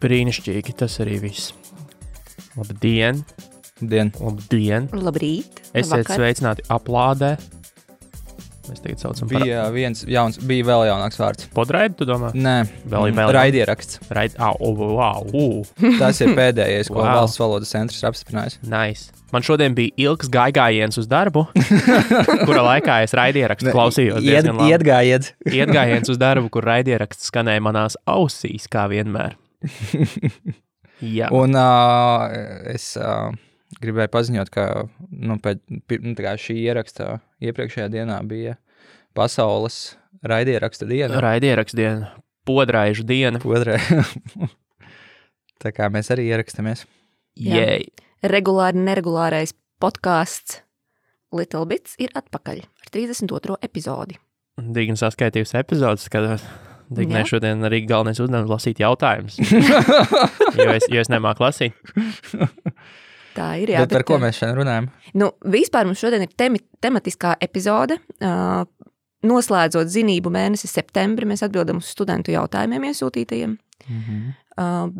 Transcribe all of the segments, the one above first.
Brīnišķīgi, tas arī viss. Labdien! Labdien! Labrīt! Esiet sveicināti aplādē. Mēs tagad saucam bija bija vēl jaunāks vārds. Podraidi, tu domā? Nē, raidieraksts. Wow. Tas ir pēdējais, ko Valsts valodas centrs ir apstiprinājis. Nice. Man šodien bija ilgs gājiens uz darbu, kura laikā es raidierakstu klausījos diezgan labi. Ietgājiens uz darbu, kur raidieraksts skanēja manās ausīs, kā vienmēr. Jā. Un es gribēju paziņot, ka šī ieraksta iepriekšējā dienā bija pasaules raidieraksta diena. Raidieraksta diena, podraižu diena. Tā kā mēs arī ierakstamies. Jei! Neregulārais podcasts Little Bits ir atpakaļ ar 32. epizodi. Digna saskaitījusi epizodes, kad Dignai šodien arī galvenais uzdevums lasīt jautājumus, jo es nemāku lasīt. Tā ir, jā. Bet par ko mēs šodien runājam? Vispār mums šodien ir tematiskā epizode. Noslēdzot zinību mēnesi septembri, mēs atbildam uz studentu jautājumiem iesūtītajiem.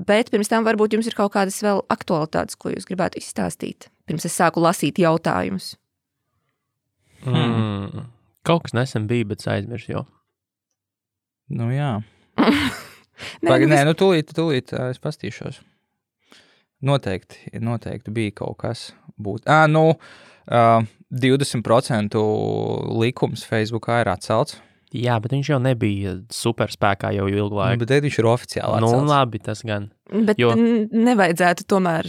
Bet pirms tam varbūt jums ir kaut kādas vēl aktualitātes, ko jūs gribētu izstāstīt, pirms es sāku lasīt jautājumus. Kaut kas nesen bija, bet aizmirsu jau. Jā. Tūlīt es pastīšos. Noteikti bija kaut kas būt. 20% likums Facebookā ir atcelts. Jā, bet viņš jau nebija superspēkā jau ilgu laiku. Bet viņš ir oficiāli atcelts. Labi, tas gan. Bet nevajadzētu tomēr,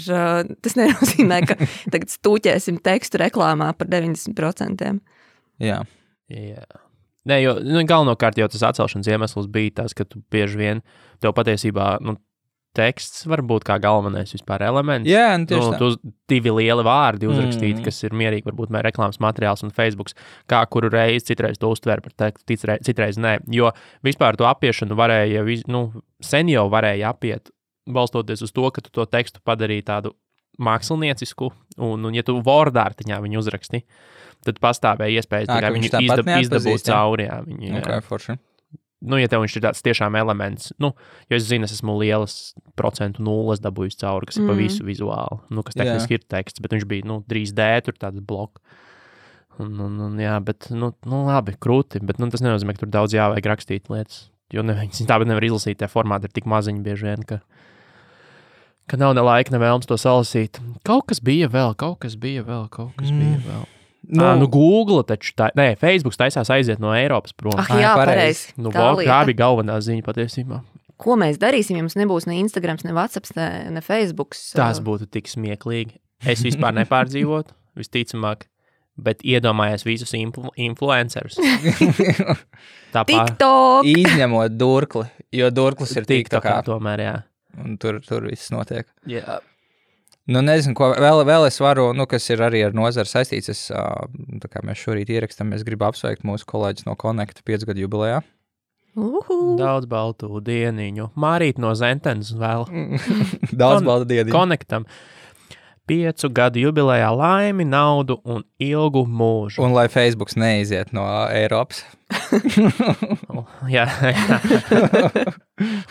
tas nenozīmē, ka tagad stūķēsim tekstu reklāmā par 90%. Jā. Nē, jo galvenokārt jau tas atcelšanas iemesls bija tas, ka tu bieži vien tev patiesībā, teksts var būt kā galvenais vispār elements. Jā, tieši tā. Tu divi lieli vārdi uzrakstīti, kas ir mierīgi, varbūt reklāmas materiāls un Facebooks, kā kuru reizi citreiz to uztver par tekstu, citreiz nē. Jo vispār to apiešanu varēja, sen jau varēja apiet, balstoties uz to, ka tu to tekstu padarīji tādu māksliniecisku, un ja tu Word-ārtiņā viņu uzraksti, tad pastāvēja iespējas tikai viņu izdabūt cauri. Forši. Ja tev viņš ir tāds tiešām elements, jo es zinu, es esmu lielas procentu nulles dabūjis cauri, kas ir pa visu vizuāli, kas tehniski ir teksts, bet viņš bija, 3D, tur tāds bloks. Bet, labi, krūti, bet, tas nenozīmē, ka tur daudz jāvajag rakstīt lietas, jo tāpēc nevar izlasīt, tie formāti ir tik maziņi bieži vien, ka nav ne laika, ne vēlms to salasīt. Kaut kas bija vēl. Google taču Facebooks taisās aiziet no Eiropas prom. Jā, pareizi. Tā bija galvenā ziņa patiesībā. Ko mēs darīsim, ja mums nebūs ne Instagrams, ne WhatsApps, ne Facebooks? Tas būtu tik smieklīgi. Es vispār nepārdzīvotu, visticamāk, bet iedomājies visus influencerus. TikTok! Izņemot Durkli, jo Durklis ir TikTokā. Tomēr, jā. Un tur viss notiek. Jā. Nezinu, ko vēl es varu, kas ir arī ar nozaru saistīts. Tā kā mēs šorīt ierakstām, es gribu apsveikt mūsu kolēģis no Connect 5 gadu jubilejā. Daudz baltu dieniņu. Mārīt no Zentenes vēl. Daudz baltu dieniņu. Connectam. 5 gadu jubilejā laimi, naudu un ilgu mūžu. Un lai Facebooks neiziet no Eiropas. Jā.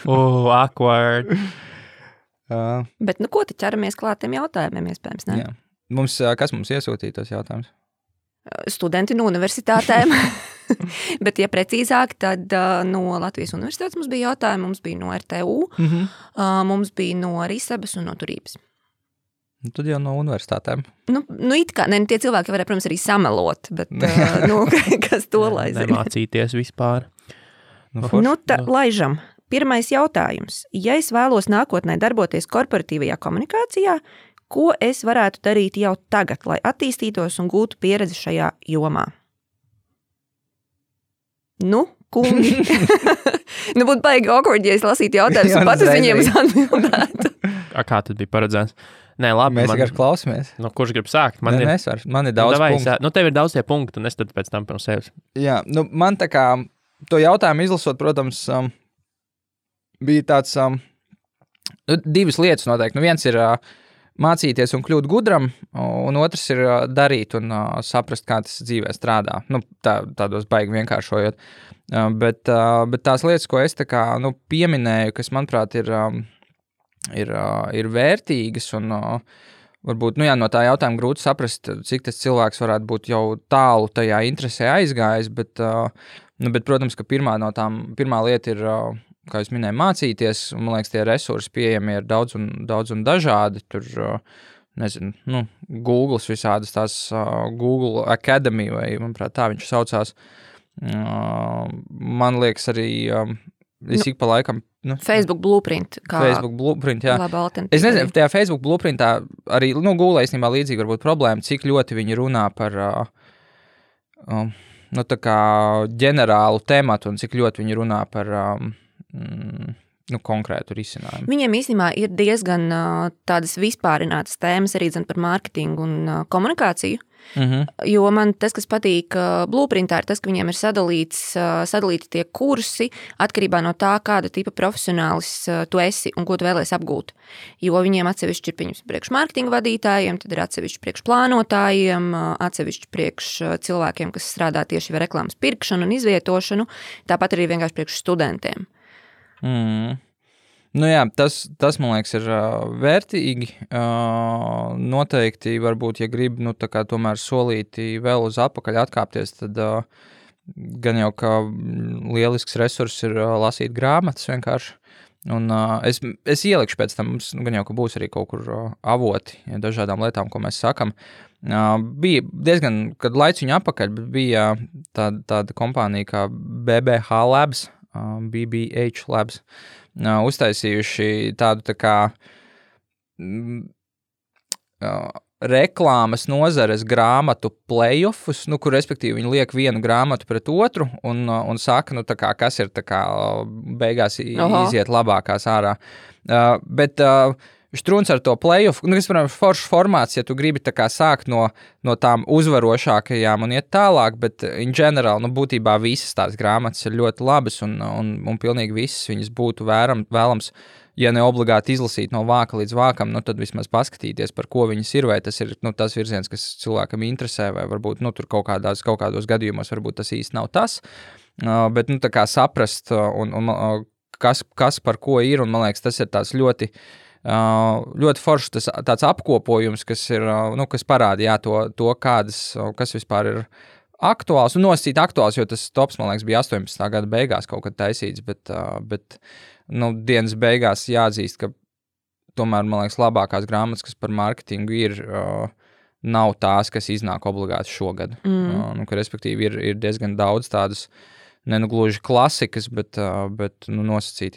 Awkward. Bet, ko te ķeramies klāt tiem jautājumiem, iespējams, ne? Jā. Kas mums iesūtīja tos jautājumus? Studenti no universitātēm. Bet, ja precīzāk, tad no Latvijas universitātes mums bija jautājumi, mums bija no RTU, mums bija no Rīsabas un no Turības. Tad jau no universitātēm. It kā, tie cilvēki varēja, protams, arī samelot, bet, kas to lai zina? Nemācīties vispār. Laižam. Pirmais jautājums. Ja es vēlos nākotnē darboties korporatīvajā komunikācijā, ko es varētu darīt jau tagad, lai attīstītos un gūtu pieredzi šajā jomā? Kungi. Būtu baigi awkward, ja es lasītu jautājumus un pat uz viņiem atbildētu. Kā tad bija paredzēts? Nē, labi. Mēs vienkārši klausamies. Kurš grib sākt? Man ir daudz punktu. Tev ir daudz tie punkti, un es tad pēc tam pirms sevis. Jā, man tā kā to jautājumu izlasot, protams, bija tāds divas lietas noteikti. Viens ir mācīties un kļūt gudram, un otrs ir darīt un saprast, kā tas dzīvē strādā. Tādos baigi vienkāršojot. Bet tās lietas, ko es tā kā pieminēju, kas, manuprāt, ir ir vērtīgas un varbūt no tā jautājuma grūti saprast, cik tas cilvēks varētu būt jau tālu tajā interesē aizgājis, bet, protams, ka pirmā lieta ir, kā jūs minēju, mācīties, un man liekas, tie resursi pieejami ir daudz un dažādi, tur, nezinu, Googles visādas tās Google Academy, vai, manuprāt, tā viņš saucās, man liekas arī, es ik pa laikam, Facebook Blueprint. Facebook Blueprint, jā. Laba alternatīva. Es nezinu, tajā Facebook Blueprintā arī, Google īstenībā līdzīgi varbūt problēma, cik ļoti viņi runā par, tā kā ģenerālu tematu un cik ļoti viņi runā par, konkrētu risinājumu. Viņiem īstenībā ir diezgan tādas vispārinātas tēmas arī par mārketingu un komunikāciju. Jo man tas, kas patīk Blueprintā, ir tas, ka viņiem ir sadalīti tie kursi atkarībā no tā, kāda tipa profesionālis tu esi un ko tu vēlies apgūt. Jo viņiem atsevišķi ir pieņems priekš mārketinga vadītājiem, tad ir atsevišķi priekš plānotājiem, atsevišķi priekš cilvēkiem, kas strādā tieši ar reklāmas pirkšanu un izvietošanu, tāpat arī vienkārši priekš studentiem. Tas, man liekas, ir vērtīgi. Noteikti, varbūt, ja grib, tā kā tomēr solīti vēl uz atpakaļ atkāpties, tad gan jau, ka lielisks resurs ir lasīt grāmatas vienkārši. Un es ielikšu pēc tam, mums gan jau, ka būs arī kaut kur avoti dažādām lietām, ko mēs sakam. Bija diezgan, kad laiciņu atpakaļ, bija tāda kompānija kā BBH Labs, BBH Labs, uztaisījuši tādu tā kā reklāmas nozares grāmatu playoffus, kur respektīvi viņi liek vienu grāmatu pret otru un saka, tā kā, kas ir tā kā beigās iziet labākās ārā. Bet Štruns ar to playoff, kas, protams, foršs formāts, ja tu gribi tā kā sākt no tām uzvarošākajām un iet tālāk, bet in general, būtībā visas tās grāmatas ir ļoti labas un pilnīgi visas viņas būtu vēlams, ja ne obligāti izlasīt no vāka līdz vākam, tad vismaz paskatīties, par ko viņas ir, vai tas ir tas virziens, kas cilvēkam interesē, vai varbūt tur kaut kādos gadījumos varbūt tas īsti nav tas, bet tā kā saprast un kas par ko ir, un man liekas, tas ir tās ļoti foršs tāds apkopojums, kas ir, kas parāda, to kas vispār ir aktuāls, un nosacīt aktuāls, jo tas tops, man liekas, bija 18. gada beigās kaut kad taisīts, bet dienas beigās jāatzīst, ka tomēr, man liekas, labākās grāmatas, kas par mārketingu ir, nav tās, kas iznāk obligāti šogad. Ka, respektīvi, ir diezgan daudz tādas, gluži klasikas, bet nosacīt,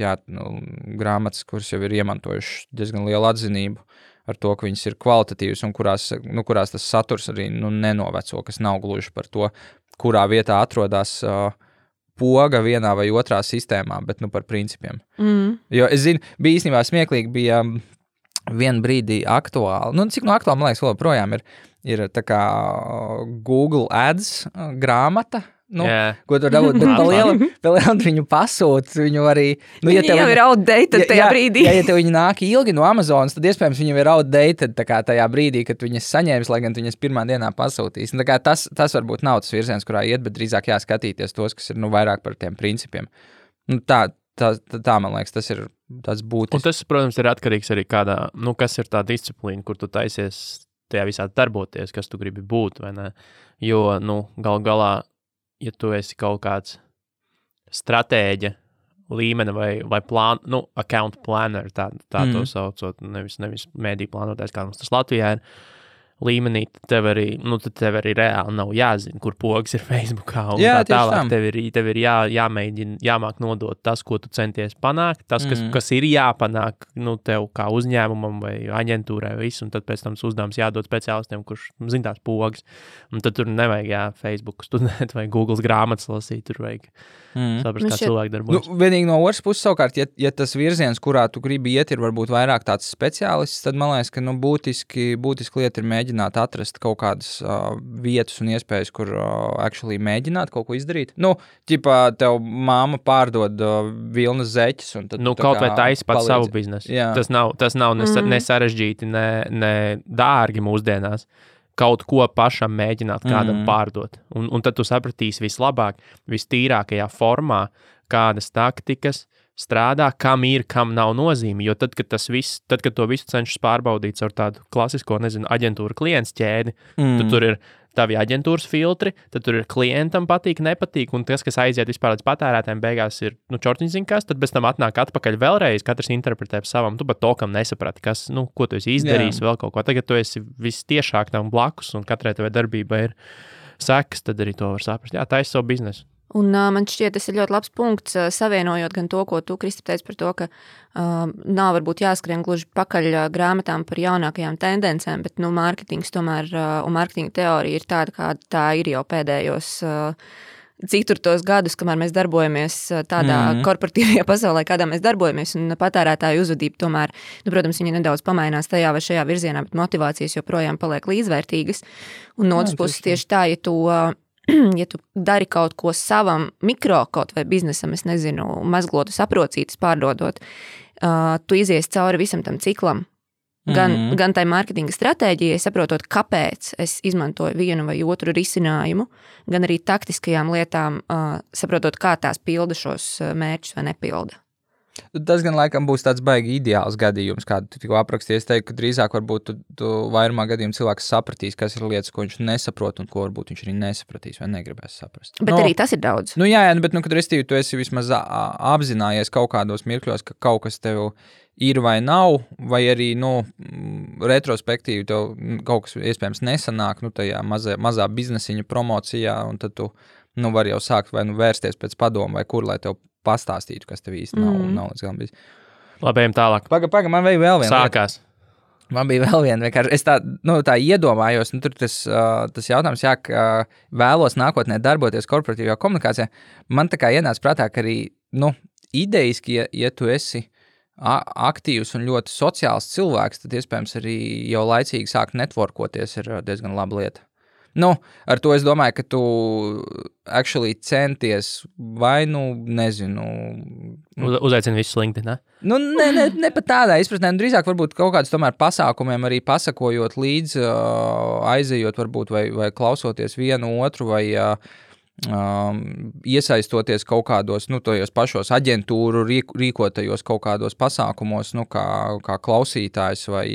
grāmatas, kuras jau ir iemantojuši diezgan lielu atzinību ar to, ka viņas ir kvalitatīvas un kurās tas saturs arī nenoveco, kas nav gluži par to, kurā vietā atrodas poga vienā vai otrā sistēmā, bet par principiem. Jo es zinu, bija īstenībā smieklīgi, bija vienu brīdī aktuāli, cik aktuāli, man liekas, vēl projām ir tā kā Google Ads grāmata, ko tur dabūt, bet palielam viņu pasūt, viņu arī... Viņi jau ir outdated tajā brīdī. Ja tev viņi nāk ilgi no Amazonas, tad iespējams viņam ir outdated tā kā tajā brīdī, kad viņas saņēmis, lai gan viņas pirmā dienā pasūtīs. Tā kā tas varbūt nav tas virziens, kurā iet, bet drīzāk jāskatīties tos, kas ir vairāk par tiem principiem. Tā, man liekas, tas ir tāds būtisks. Un tas, protams, ir atkarīgs arī kādā, kas ir tā disciplīna, kur tu taisies tajā visā darboties, kas tu gribi būt, vai ne? Jo, galā, ja tu esi kaut kāds stratēģa līmeni vai account planner, tā to saucot, nevis mēdī plānotājs, kā mums tas Latvijā ir, līmenī, tev arī reāli nav jāzina, kur pogas ir Facebookā un tā tālāk. Tev ir jāmēģina, jāmāk nodot tas, ko tu centies panākt, tas, kas ir jāpanāk, tev kā uzņēmumam vai aģentūrai visu, un tad pēc tam uzdevums jādod speciālistiem, kurš zina tās pogas. Un tad tur nevajag Facebook studēt vai Googles grāmatas lasīt, tur vajag saprast, kā cilvēki darbojas. Vienīgi no otras puses savukārt, ja tas virziens, kurā tu gribi iet, ir varbūt vairāk tāds speciālists, tad man liekas, ka būtiski lieta ir mēģināt atrast kaut kādas vietas un iespējas, kur actually mēģināt kaut ko izdarīt. Ķipā tev māma pārdod vilnas zeķes. Un tad kaut vai taisi pats savu biznesu. Tas nav ne sarežģīti, ne dārgi mūsdienās. Kaut ko pašam mēģināt kādam pārdot. Un tad tu sapratīsi vislabāk, vistīrākajā formā, kādas taktikas strādā, kam ir, kam nav nozīme. Jo tad, kad to visu cenšas pārbaudīt ar tādu klasisko, aģentūru klients ķēdi, tad tur ir tavi aģentūras filtri, tad tur ir klientam patīk, nepatīk, un tas, kas aiziet vispār līdz patērētājiem, beigās ir, čortiņš zina kas, tad bez tam atnāk atpakaļ vēlreiz, katrs interpretē savam, tu pat to, kam nesaprati, kas, ko tu esi izdarījis, vēl kaut ko. Tagad tu esi vistiešāk tam blakus, un katrai tavai darbībai ir sekas, tad arī to var saprast. Jā, tā ir savu biznesu. Un man šķiet, tas ir ļoti labs punkts, savienojot gan to, ko tu, Kristap, teici par to, ka nav varbūt jāskrien gluži pakaļ grāmatām par jaunākajām tendencēm, bet, mārketings tomēr un mārketinga teorija ir tāda, kāda tā ir jau pēdējos ceturtos gadus, kamēr mēs darbojamies tādā korporatīvajā pasaulē, kādā mēs darbojamies, un patērētāju uzvedība tomēr, protams, viņa nedaudz pamainās tajā vai šajā virzienā, bet motivācijas joprojām paliek līdzvērtīgas. Un no otras puses tieši tā, ja tu dari kaut ko savam mikro kaut vai biznesam, es nezinu, mazglotu saprocītas pārdodot, tu izies cauri visam tam ciklam. Gan tai mārketinga stratēģijai, saprotot, kāpēc es izmantoju vienu vai otru risinājumu, gan arī taktiskajām lietām, saprotot, kā tās pilda šos mērķus vai nepilda. Tas gan laikam būs tāds baigi ideāls gadījums, kādu tu tikko aprakstīji. Es teiktu, ka drīzāk varbūt tu vairumā gadījumā cilvēks sapratīs, kas ir lietas, ko viņš nesaprot un ko varbūt viņš arī nesapratīs vai negribēs saprast. Bet arī tas ir daudz. Jā, bet, kad restīvi tu esi vismaz apzinājies kaut kādos mirkļos, ka kaut kas tev ir vai nav, vai arī, retrospektīvi tev kaut kas iespējams nesanāk, tajā mazā biznesiņa promocijā, un tad tu, var jau sākt vai vērsties pēc padomu vai kur, lai tev pastāstītu, kas tev īsti nav līdz galam bijis. Labi, ejam tālāk. Paga, man vēl viena. Sākās. Man bija vēl viena, vienkārši. Es tā iedomājos, tur tas jautājums, ka vēlos nākotnē darboties korporatīvajā komunikācijā. Man tā kā ienāca prātā, ka arī, idejiski, ja tu esi aktīvs un ļoti sociāls cilvēks, tad iespējams arī jau laicīgi sākt networkoties ir diezgan laba lieta. Ar to es domāju, ka tu actually centies vai, nezinu... Uzaicini visus LinkedIn, ne? Ne pat tādā izpratnē, drīzāk varbūt kaut kādus tomēr pasākumiem arī pasakojot līdz, aizejot varbūt vai klausoties vienu otru vai iesaistoties kaut kādos, tojos pašos aģentūru rīkotajos kaut kādos pasākumos, kā klausītājs vai...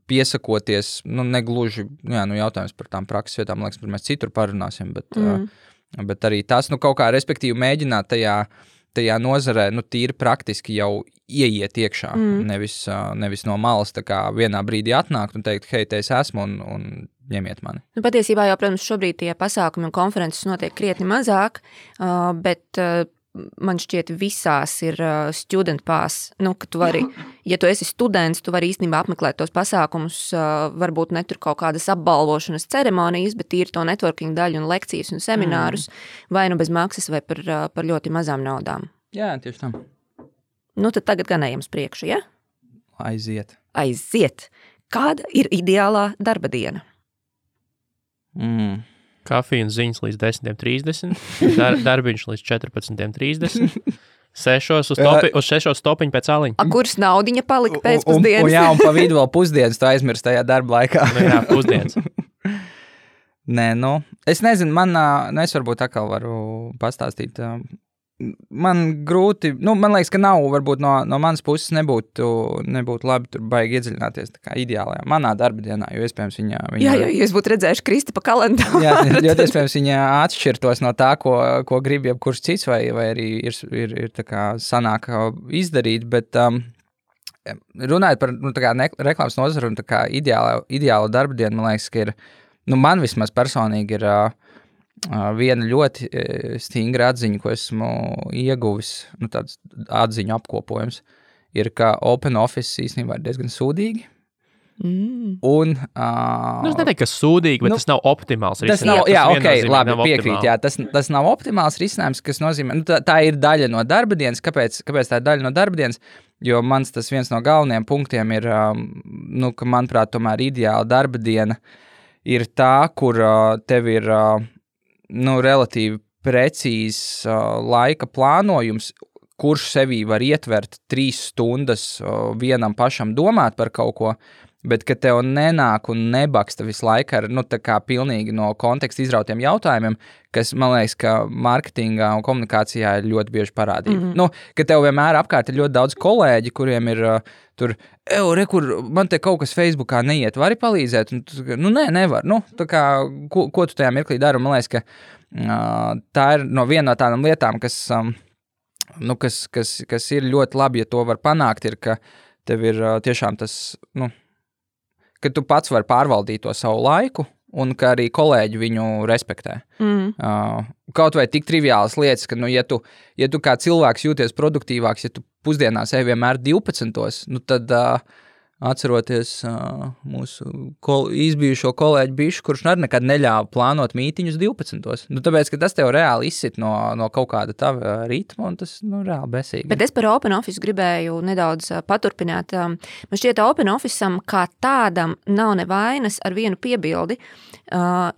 piesakoties, negluži, jautājums par tām prakses vietām, liekas, par mēs citur parunāsim, bet arī tas, kaut kā respektīvi mēģināt tajā nozarē, tīri praktiski jau ieiet iekšā, nevis no malas tā kā vienā brīdī atnākt un teikt, hei, te es esmu un ņemiet mani. Patiesībā jau, protams, šobrīd tie pasākumi un konferences notiek krietni mazāk, bet man šķiet visās ir student pass, ka tu vari, ja tu esi students, tu vari īstenībā apmeklēt tos pasākumus, varbūt ne tur kaut kādas apbalvošanas ceremonijas, bet ir to networking daļu un lekcijas un seminārus, vai bez maksas, vai par ļoti mazām naudām. Jā, tieši tam. Tad tagad gan ejam uz priekšu, ja? Aiziet. Kāda ir ideālā darba diena? Kafija un ziņas līdz 10:30, darbiņš līdz 14:30, 6 stopiņi pēc aliņa. Kurs naudiņa palika pēcpusdienas? Un pa vidu vēl pusdienas, tu aizmirst tajā darba laikā. Jā, pusdienas. Nē, es nezinu, es varbūt atkal varu pastāstīt. Man grūti, man liekas, ka nav, varbūt no manas puses nebūtu labi tur baigi iedziļināties tā kā ideālajā manā darba dienā, jo iespējams viņa... Jā, jūs būtu redzējuši Kristapa kalendāru. Jā, jo iespējams viņa atšķirtos no tā, ko grib jebkurš cits, vai arī ir tā kā sanāk izdarīt, bet runājot par tā kā reklāmas nozaru un tā kā ideāla darba diena, man liekas, ka ir, man vismaz personīgi ir... viena ļoti stingra atziņa, ko esmu ieguvis, tāds atziņu apkopojums, ir, ka Open Office īstenībā ir diezgan sūdīgi. Un, es neteiktu, ka sūdīgi, bet tas nav optimāls risinājums. Labi, piekrīt, tas nav optimāls risinājums, kas nozīmē, tā ir daļa no darba dienas. Kāpēc tā ir daļa no darba dienas? Jo mans tas viens no galvenajiem punktiem ir, ka manuprāt, tomēr ideāla darba diena ir tā, kur tev ir relatīvi precīzs laika plānojums, kurš sevī var ietvert 3 stundas vienam pašam domāt par kaut ko, bet ka tev nenāk un nebaksta visu laiku ar, tā kā pilnīgi no konteksta izrautiem jautājumiem, kas, man liekas, ka mārketingā un komunikācijā ir ļoti bieži parādība. Ka tev vienmēr apkārt ir ļoti daudz kolēģi, kuriem ir tur, kur man te kaut kas Facebookā neiet, vari palīdzēt? Un, nē, nevar. Tā kā, ko tu tajā mirklī dari? Man liekas, ka tā ir viena no tādām lietām, kas ir ļoti labi, ja to var panākt, ir, ka tev ir tiešām tas, ka tu pats vari pārvaldīt to savu laiku, un ka arī kolēģi viņu respektē. Kaut vai tik triviālas lietas, ka, ja tu kā cilvēks jūties produktīvāks, ja tu pusdienās ej vienmēr 12, tad atceroties mūsu izbijušo kolēģi Bišu, kurš nekad neļāva plānot mītiņus 12. Tāpēc, ka tas tev reāli izsit no kaut kāda tava ritma, un tas reāli besīgi. Bet es par Open Office gribēju nedaudz paturpināt. Man šķiet, Open Officeam kā tādam nav nevainas ar vienu piebildi,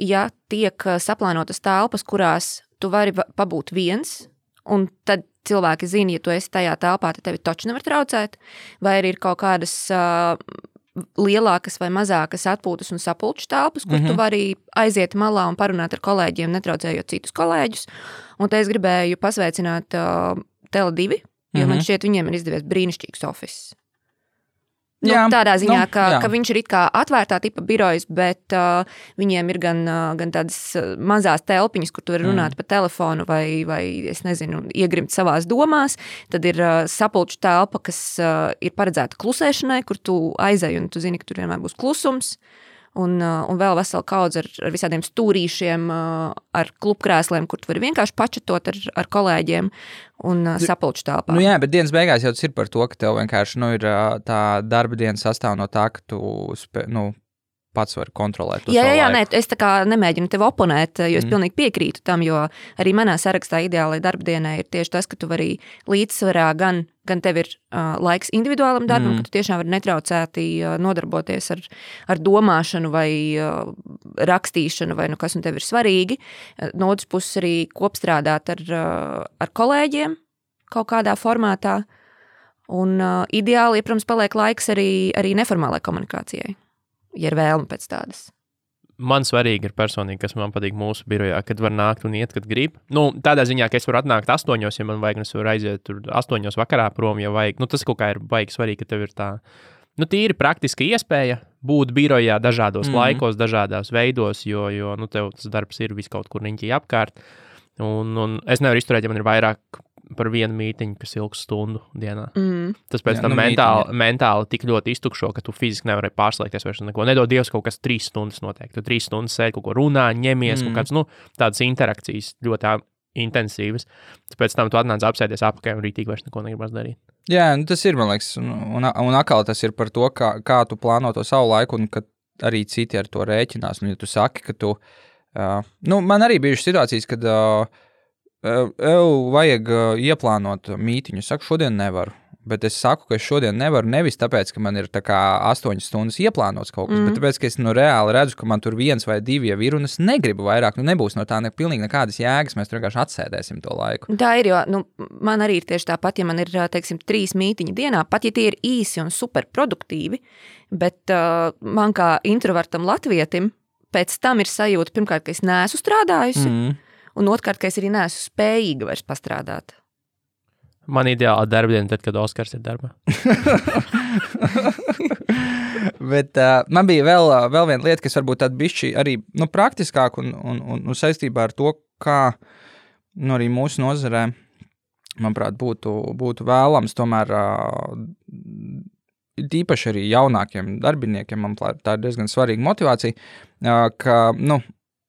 ja tiek saplānotas telpas, kurās tu vari pabūt viens, un tad cilvēki zina, ja tu esi tajā telpā, tad tevi taču nevar traucēt, vai arī ir kaut kādas lielākas vai mazākas atpūtas un sapulču telpas, kur tu vari aiziet malā un parunāt ar kolēģiem, netraucējot citus kolēģus. Un te es gribēju pasveicināt Tele2, jo man šķiet, viņiem ir izdevies brīnišķīgs office. Tādā ziņā, ka viņš ir it kā atvērtā tipa birojas, bet viņiem ir gan tādas mazās telpiņas, kur tu vari runāt pa telefonu vai, es nezinu, iegrimt savās domās. Tad ir sapulču telpa, kas ir paredzēta klusēšanai, kur tu aizej un tu zini, ka tur vienmēr būs klusums. Un vēl vesela kaudze ar visādiem stūrīšiem, ar klubkrēsliem, kur tu vari vienkārši pačatot ar kolēģiem un sapulču telpā. Jā, bet dienas beigās jau tas ir par to, ka tev vienkārši ir tā darba diena sastāv no tā, ka tu pats vari kontrolēt to savu laiku. Nē, es tā kā nemēģinu tev oponēt, jo es pilnīgi piekrītu tam, jo arī manā sarakstā ideālai darba dienai ir tieši tas, ka tu vari līdzsvarā gan tev ir laiks individuālam darbam, ka tu tiešām vari netraucēti nodarboties ar domāšanu vai rakstīšanu vai kas un tev ir svarīgi. No otras puses arī kopstrādāt ar kolēģiem kaut kādā formātā. Un ideāli, protams, paliek laiks arī neformālai komunikācijai, ja ir vēlme pēc tādas. Man svarīgi ir personīgi, kas man patīk mūsu birojā, kad var nākt un iet, kad grib. Tādā ziņā, ka es varu atnākt 8, ja man vajag, un es varu aiziet tur 8 vakarā prom, ja vajag. Tas kaut kā ir baigi svarīgi, ka tev ir tā, tīri praktiska iespēja būt birojā dažādos laikos, dažādās veidos, jo tev tas darbs ir vis kaut kur riņķī apkārt. Un es nevaru izturēt, ja man ir vairāk par vienu mītiņu, kas ilgs stundu dienā. Tas pēc tam mentāli tik ļoti iztukšo, ka tu fiziski nevari pārslēgties vairs neko. Nedod Dievs kaut kas 3 stundas noteikti. Tu 3 stundas sēdi, kaut ko runā, ņemies, kaut kāds, tādas interakcijas ļoti intensīvas. Pēc tam tu atnāc apsēties apakaļ un rītīgi vairs neko negribas darīt. Jā, tas ir, man liekas, un atkal tas ir par to, kā tu plāno to savu laiku, un ka arī citi ar to rēķinās. Un ja tu saki, ka tu... man arī bijušas situācijas, kad... vajag ieplānot mītiņu. Es saku, šodien nevaru. Bet es saku, ka es šodien nevaru nevis tāpēc, ka man ir tā kā 8 stundas ieplānots kaut kas, bet tāpēc, ka es reāli redzu, ka man tur 1 vai 2 jau ir, un es negribu vairāk. Nebūs no tā pilnīgi nekādas jēgas, mēs tur vienkārši atsēdēsim to laiku. Tā ir, jo man arī ir tieši tāpat, ja man ir, teiksim, 3 mītiņi dienā, pat ja tie ir īsi un super produktīvi, bet man kā introvertam latvietim pēc tam ir sajūta, pirmkārt, ka es neesmu strādājusi, un otrkārt, ka es arī neesmu spējīga vairs pastrādāt. Man ideāla darbdiena tad, kad Oskars ir darbā. Bet man bija vēl viena lieta, kas varbūt tāda bišķi arī praktiskāk un saistībā ar to, kā arī mūsu nozarē, manuprāt, būtu vēlams tomēr īpaši arī jaunākiem darbiniekiem, manuprāt, tā ir diezgan svarīga motivācija, ka,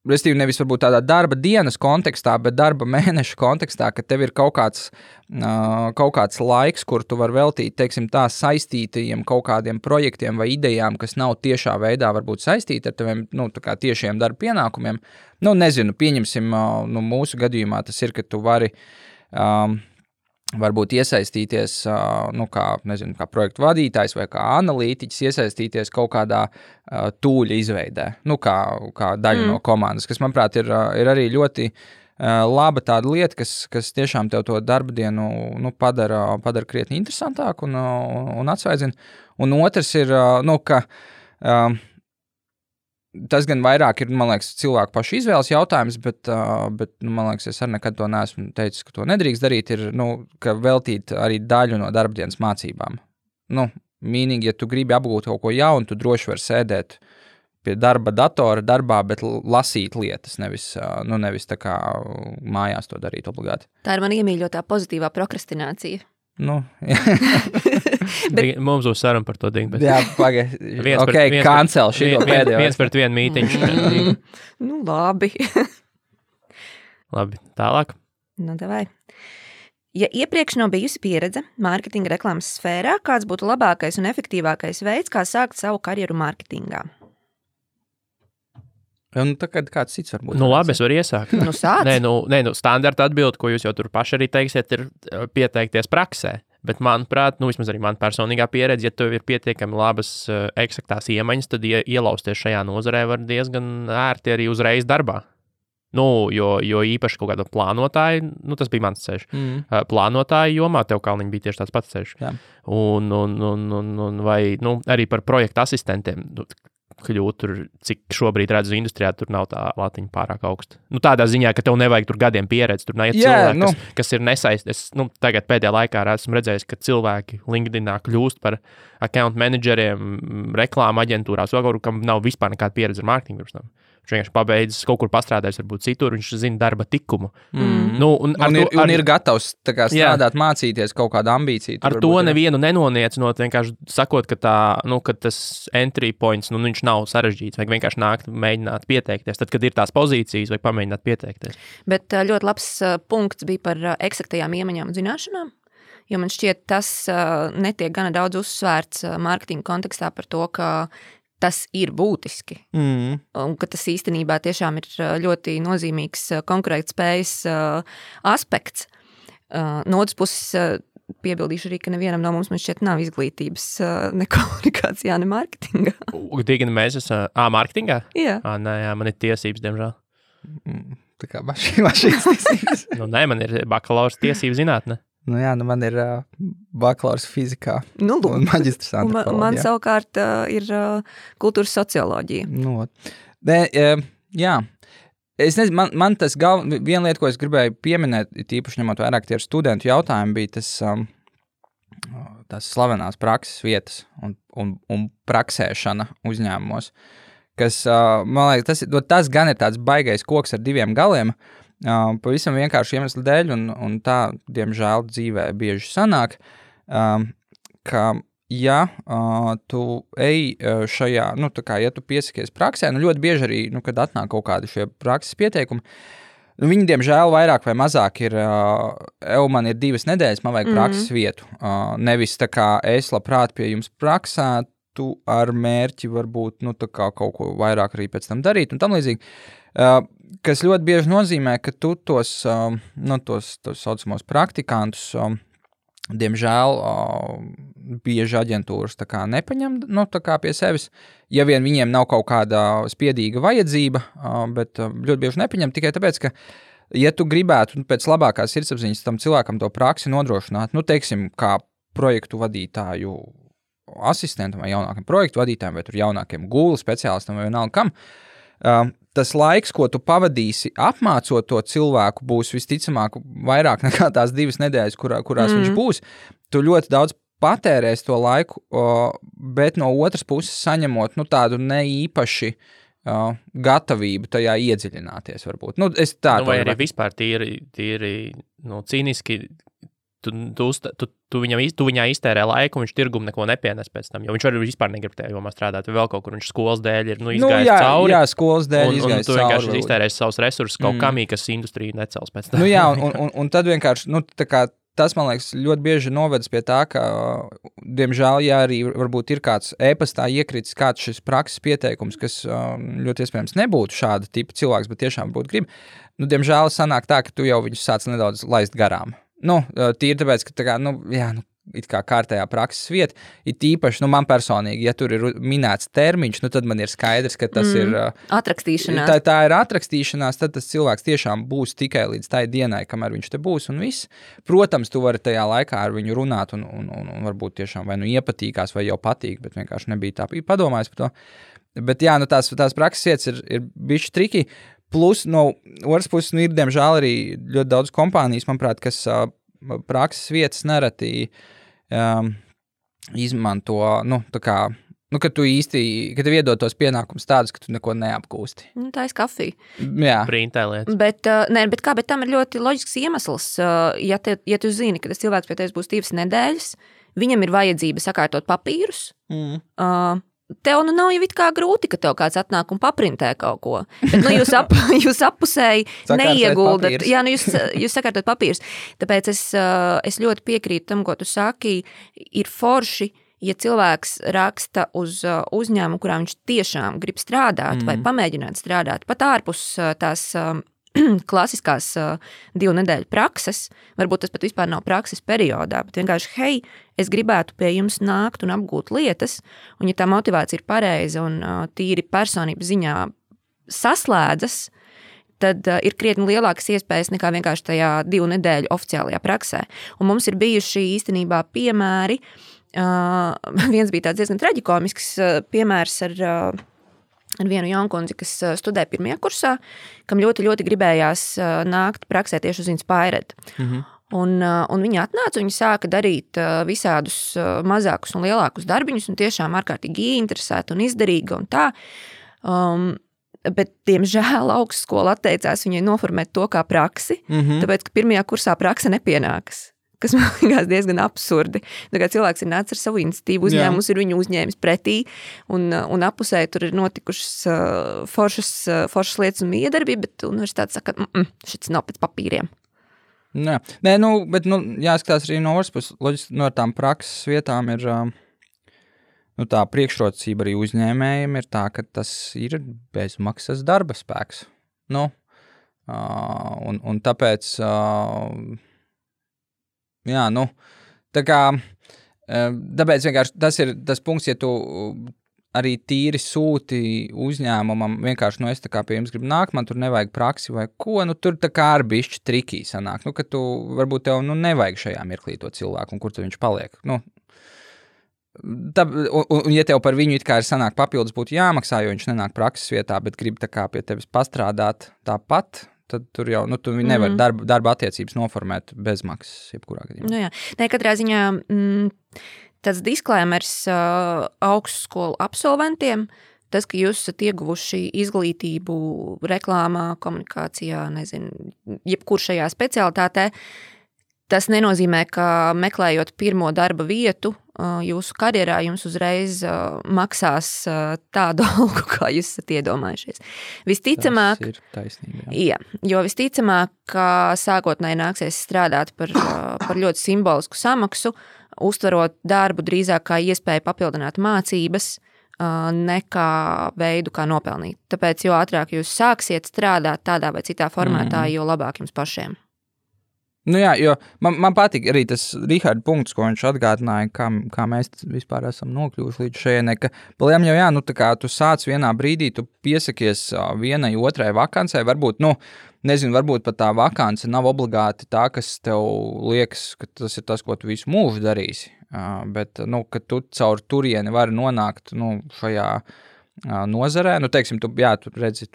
restīvi nevis varbūt tādā darba dienas kontekstā, bet darba mēneša kontekstā, ka tev ir kaut kāds laiks, kur tu var veltīt, teiksim, tā saistītajiem kaut kādiem projektiem vai idejām, kas nav tiešā veidā varbūt saistīti ar teviem, tā kā tiešiem darba pienākumiem. Nezinu, pieņemsim, mūsu gadījumā tas ir, ka tu vari varbūt iesaistīties, kā projektu vadītājs vai kā analītiķis, iesaistīties kaut kādā tūļa izveidē, kā daļa no komandas, kas, manuprāt, ir arī ļoti laba tāda lieta, kas tiešām tev to darba dienu padara krietni interesantāku un atsvaidzina. Un otrs ir, ka Tas gan vairāk ir, man liekas, cilvēku pašu izvēles jautājums, bet man liekas, es arī nekad to neesmu teicis, ka to nedrīkst darīt, ir, ka veltīt arī daļu no darbdienas mācībām. Mīnīgi, ja tu gribi apgūt kaut ko jaunu, tu droši vari sēdēt pie darba datora darbā, bet lasīt lietas, nevis tā kā mājās to darīt obligāti. Tā ir man iemīļotā pozitīvā prokrastinācija. Mums būs saruna par to dingu. Jā, cancel šito pēdējo. Viens pret vienu mītiņu. Labi. Labi, tālāk. Davai. Ja iepriekš nav bijusi pieredze mārketinga reklāmas sfērā, kāds būtu labākais un efektīvākais veids, kā sākt savu karjeru mārketingā? Tagad kāds cits varbūt. Labi, es varu iesākt. Sāc. Standarta atbilde, ko jūs jau tur paši arī teiksiet, ir pieteikties praksē. Bet, manuprāt, vismaz arī man personīgā pieredze, ja tev ir pietiekami labas eksaktās iemaņas, tad ielausties šajā nozarē var diezgan ērti arī uzreiz darbā. Jo īpaši kaut kāda plānotāja, tas bija mans ceļš. Plānotāja jomā tev kalniņi bija tieši tāds pats ceļš. Jā. Un vai arī par projektu asistentiem kļūt tur, cik šobrīd redzu industrijā, tur nav tā latiņa pārāk augsta. Tādā ziņā, ka tev nevajag tur gadiem pieredzi, tur nav cilvēki, kas ir nesaistīti. Tagad pēdējā laikā esmu redzējis, ka cilvēki LinkedInā kļūst par account manageriem, reklāma aģentūrās, kam nav vispār nekāda pieredze ar mārketingu. Viņš vienkārši pabeidzis kaut kur pastrādājis, varbūt citur, viņš zina darba tikumu. Ir gatavs strādāt, mācīties kaut kādu ambīciju. Ar to nevienu nenoniecot, vienkārši sakot, ka ka tas entry points, viņš nav sarežģīts, vajag vienkārši nākt, mēģināt pieteikties. Tad, kad ir tās pozīcijas, vajag pamēģināt pieteikties. Bet ļoti labs punkts bija par eksaktajām iemaņām un zināšanām, jo man šķiet, tas netiek gana daudz uzsvērts mārketinga kontekstā par to, ka tas ir būtiski. Un ka tas īstenībā tiešām ir ļoti nozīmīgs konkurētspējas aspekts. No otras puses piebildīšu arī, ka nevienam no mums man šķiet nav izglītības ne komunikācijā, ne mārketingā. Tīgani mēs esam mārketingā? Jā. Nē, man ir tiesības, diemžēl. Tā kā mašīnas tiesības. Nē, man ir bakalaurs tiesību zinātne. Man ir bakalaurs fizikā un maģistrs antropoloģijā. Man savukārt ir kultūras socioloģija. Jā. Es nezinu, man tas viena lieta, ko es gribēju pieminēt, tīpaši ņemot vairāk tie studentu jautājumi, bija tas slavenās prakses vietas un praksēšana uzņēmumos, kas, man liekas, tas gan ir tāds baigais koks ar diviem galiem, pavisam vienkārši iemeslu dēļ, un tā, diemžēl, dzīvē bieži sanāk, ka, ja tu ej šajā, ja tu piesakies praksē, ļoti bieži arī, kad atnāk kaut kādi šie prakses pieteikumi, viņi, diemžēl, vairāk vai mazāk ir, man ir 2 nedēļas, man vajag prakses vietu. Nevis tā kā es labprāt pie jums praksētu ar mērķi varbūt, kaut ko vairāk arī pēc tam darīt un tam līdzīgi. Kas ļoti bieži nozīmē, ka tu tos saucamos praktikantus, diemžēl, bieži aģentūras tā kā nepaņem tā kā pie sevis, ja vien viņiem nav kaut kāda spiedīga vajadzība, bet ļoti bieži nepaņem tikai tāpēc, ka, ja tu gribētu pēc labākās sirdsapziņas tam cilvēkam to praksi nodrošināt, teiksim, kā projektu vadītāju asistentam vai jaunākiem projektu vadītājiem, vai tur jaunākiem Google speciālistam vai vienalga kam, tas laiks, ko tu pavadīsi apmācot to cilvēku, būs visticamāk vairāk nekā tās 2 nedēļas, kurās viņš būs. Tu ļoti daudz patērēs to laiku, bet no otras puses saņemot tādu neīpaši gatavību tajā iedziļināties varbūt. Vai arī vispār tīri cīniski, tu viņā iztērē laiku, un viņš tirgumu neko nepienes pēc tam, jo viņš arī vispār negrib tajā jomā strādāt, vai vēl kaut kur viņš skolas dēļ ir izgājis cauri. Jā, skolas dēļ izgājis cauri. Un tu vienkārši iztērēsi savus resursus kaut kamī, kas industriju necels pēc tam. Un tad vienkārši, tas, man liekas, ļoti bieži novedas pie tā, ka, diemžēl, ja arī varbūt ir kāds e-pastā iekritis kāds šis prakses pieteikums, kas ļoti iespējams nebūtu šāda tipa cilvēks, bet tiešām būtu grib, diemžēl sanāk tā, ka tu jau viņus sāc nedaudz laist garām. Tīri tāpēc, ka it kā kārtējā prakses vieta. Ir tīpaši, man personīgi, ja tur ir minēts termiņš, tad man ir skaidrs, ka tas ir atrakstīšanās. Tā ir atrakstīšanās, tad tas cilvēks tiešām būs tikai līdz tai dienai, kamēr viņš te būs un viss. Protams, tu vari tajā laikā ar viņu runāt un varbūt tiešām vai nu iepatīkās vai jau patīk, bet vienkārši nebija tā padomājis par to. Bet jā, tās prakses vietas ir bišķi triki. Plus, no otras puses, ir, diemžēl, arī ļoti daudz kompānijas, manuprāt, kas prakses vietas nereti izmanto, kad tu īsti, kad tev iedod tos pienākumus tādus, ka tu neko neapgūsti. Tā ir kafija. Jā. Printē lietas. Bet tam ir ļoti loģisks iemesls. Ja tu zini, ka tas cilvēks pie tevis būs 2 nedēļas, viņam ir vajadzība sakārtot papīrus, tev nav jau it kā grūti, ka tev kāds atnāk un paprintē kaut ko. Bet jūs appusēji neieguldat. Jā, jūs sakārtot papīrus. Tāpēc es ļoti piekrītu tam, ko tu saki. Ir forši, ja cilvēks raksta uz uzņēmumu, kurā viņš tiešām grib strādāt vai pamēģināt strādāt, pat ārpus tās klasiskās 2 nedēļu prakses, varbūt tas pat vispār nav prakses periodā, bet vienkārši, hei, es gribētu pie jums nākt un apgūt lietas, un ja tā motivācija ir pareiza un tīri personības ziņā saslēdzas, tad ir krietni lielākas iespējas nekā vienkārši tajā 2 nedēļu oficiālajā praksē. Un mums ir bijuši īstenībā piemēri, viens bija tāds diezgan traģikomisks piemērs ar vienu jaunkundzi, kas studē 1. kursā, kam ļoti, ļoti gribējās nākt praksē tieši uz Inspired. Un viņa atnāca, viņa sāka darīt visādus mazākus un lielākus darbiņus, un tiešām ārkārtīgi interesēta un izdarīga un tā. Bet, diemžēl, augstskola atteicās viņai noformēt to kā praksi, tāpēc, ka 1. kursā prakse nepienākas. Kas man liekas diezgan absurdi. Tā kā cilvēks ir nācis ar savu iniciatīvu, uzņēmums ir viņu uzņēmis pretī, un apusē tur ir notikušas foršas lietas un miedarbība, bet universitāte saka, šis nav pēc papīriem. Nē, bet jāskatās arī no otras puses, loģiski no tām prakses vietām ir tā priekšrocība arī uzņēmējiem ir tā, ka tas ir bezmaksas darba spēks. Un tāpēc... Jā, tā kā, tāpēc vienkārši tas ir tas punkts, ja tu arī tīri sūti uzņēmumam, vienkārši, es tā kā pie jums gribu nākt, man tur nevajag praksi vai ko, tur tā kā ar bišķi trikī sanāk, ka tu, varbūt tev, nevajag šajā mirklī to cilvēku, un kur tu viņš paliek, un ja tev par viņu it kā ir sanāk papildus būtu jāmaksā, jo viņš nenāk prakses vietā, bet grib tā kā pie tevis pastrādāt tāpat, tad tur jau, tu nevar darba attiecības noformēt bez maksas, jebkurā gadījumā. Jā, katrā ziņā tāds disklēmers augstskolu absolventiem, tas, ka jūs esat ieguvuši izglītību reklāmā, komunikācijā, jebkur šajā specialitātē, tas nenozīmē, ka meklējot pirmo darba vietu jūsu karjerā, jums uzreiz maksās tādu algu, kā jūs esat iedomājušies. Visticamāk, tas ir taisnība. Jā, jo visticamāk, ka sākotnēji nāksies strādāt par ļoti simbolisku samaksu, uztverot darbu drīzāk kā iespēju papildināt mācības, nekā veidu, kā nopelnīt. Tāpēc, jo ātrāk jūs sāksiet strādāt tādā vai citā formātā, jo labāk jums pašiem. Jā, jo man patīk arī tas Riharda punkts, ko viņš atgādināja, kā mēs vispār esam nokļuvuši līdz šejienei, ka paliem jau tā kā tu sāc vienā brīdī, tu piesakies vienai otrai vakancei, varbūt, varbūt pat tā vakance nav obligāti tā, kas tev liekas, ka tas ir tas, ko tu visu mūžu darīsi, bet, ka tu caur turieni vari nonākt, šajā nozarē, teiksim, tu redzi,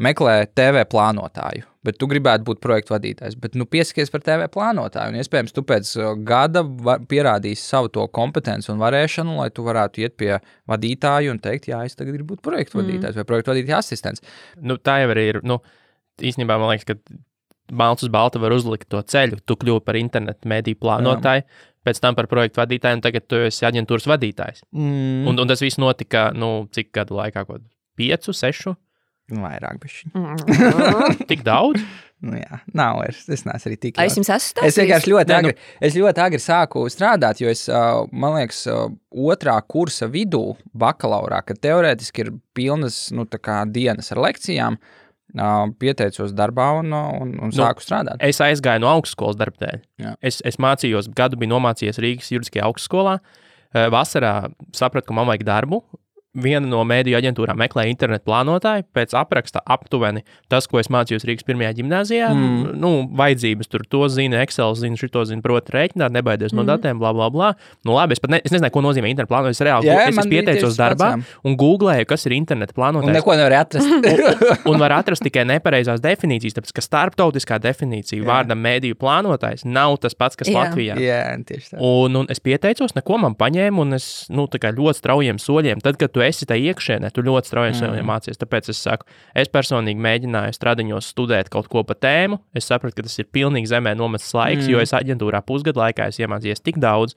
meklē TV plānotāju, bet tu gribētu būt projektu vadītājs, bet piesakies par TV plānotāju, un iespējams tu pēc gada pierādīsi savu to kompetenci un varēšanu, lai tu varētu iet pie vadītāju un teikt, jā, es tagad gribu būt projektu vadītājs vai projektu vadītāja asistents. Tā jau arī ir, īstenībā man liekas, ka balts uz balta var uzlikt to ceļu, tu kļūsi par internetu mediju plānotāju, pēc tam par projektu vadītāju, un tagad tu esi aģentūras vadītājs. Un tas viss notika, cik gadu laikā, 5, 6? Vairāk bišķi. Tik daudz? Jā, nav vairs. Es neesmu arī tik. Es jums esmu stāstījis? Es vienkārši ļoti agri sāku strādāt, jo es, man liekas, 2. kursa vidū bakalaurā, kad teorētiski ir pilnas, tā kā dienas ar lekcijām, pieteicos darbā un sāku strādāt. Es aizgāju no augstskolas darba dēļ. Es mācījos, gadu biju nomācījies Rīgas juridiskajā augstskolā. Vasarā sapratu, ka man vajag darbu. Viena no mēdīju aģentūrām meklē internetu plānotāju, pēc apraksta aptuveni tas, ko es mācījos Rīgas pirmajā ģimnāzijā, vajadzības tur to zina, Excel zina, šito zina, proti rēķināt, nebaidies no datiem, bla, bla, bla. Nu labi, es nezināju, ko nozīmē internetu plānotājs. Es reāli es pieteicos darbā un googlēju, kas ir internetu plānotājs. Un neko nevar atrast. un var atrast tikai nepareizās definīcijas, tāpēc, ka starptautiskā definīcija vārdam mēdīju plānotājs nav tas pats, kas Latvijā. Jā, tieši tā. Un es pieteicos, neko man paņēma, un es, tā kā ļoti straujiem soļiem, tad, kad tu esi tā iekšēnē, tu ļoti strauji mācies. Tāpēc es saku, es personīgi mēģināju stradiņos studēt kaut ko pa tēmu. Es sapratu, ka tas ir pilnīgi zemē nomests laiks, jo es aģentūrā pusgadu laikā esmu iemācījies tik daudz.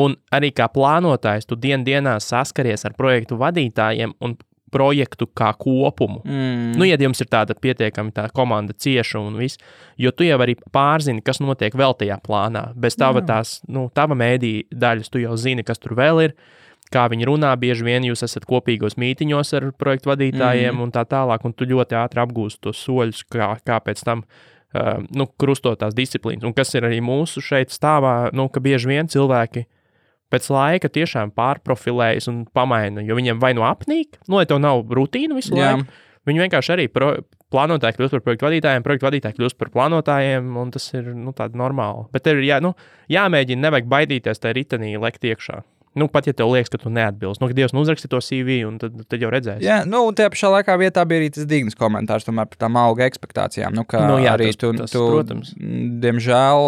Un arī kā plānotājs, tu dienā saskaries ar projektu vadītājiem un projektu kā kopumu. Ja jums ir tāda pietiekami tā komanda cieša un viss, jo tu jau arī pārzini, kas notiek vēl tajā plānā. Bez tava tava mēdī daļas tu jau zini, kas tur vēl ir. Kā viņi runā, bieži vien jūs esat kopīgos mītiņos ar projektu vadītājiem un tā tālāk, un tu ļoti ātri apgūsti tos soļus, kā pēc tam krustot tās disciplīnas. Un kas ir arī mūsu šeit stāvā, ka bieži vien cilvēki pēc laika tiešām pārprofilējas un pamaina, jo viņiem vai nu apnīk, lai tev nav rutīna visu laiku, viņi vienkārši arī plānotāji kļūst par projektu vadītājiem, projektu vadītāji kļūst par plānotājiem, un tas ir tāda normāla. Bet tev ir jāmēģina, nevajag baidīties tajā ritenī lekt iekšā. Pat ja tev liekas, ka tu neatbilst. Kad Dievs uzraksti to CV, un tad jau redzēsi. Jā, tajā pašā laikā vietā bija arī tas dignas komentārs tomēr par tām auga ekspektācijām. Arī tas, protams. Diemžēl,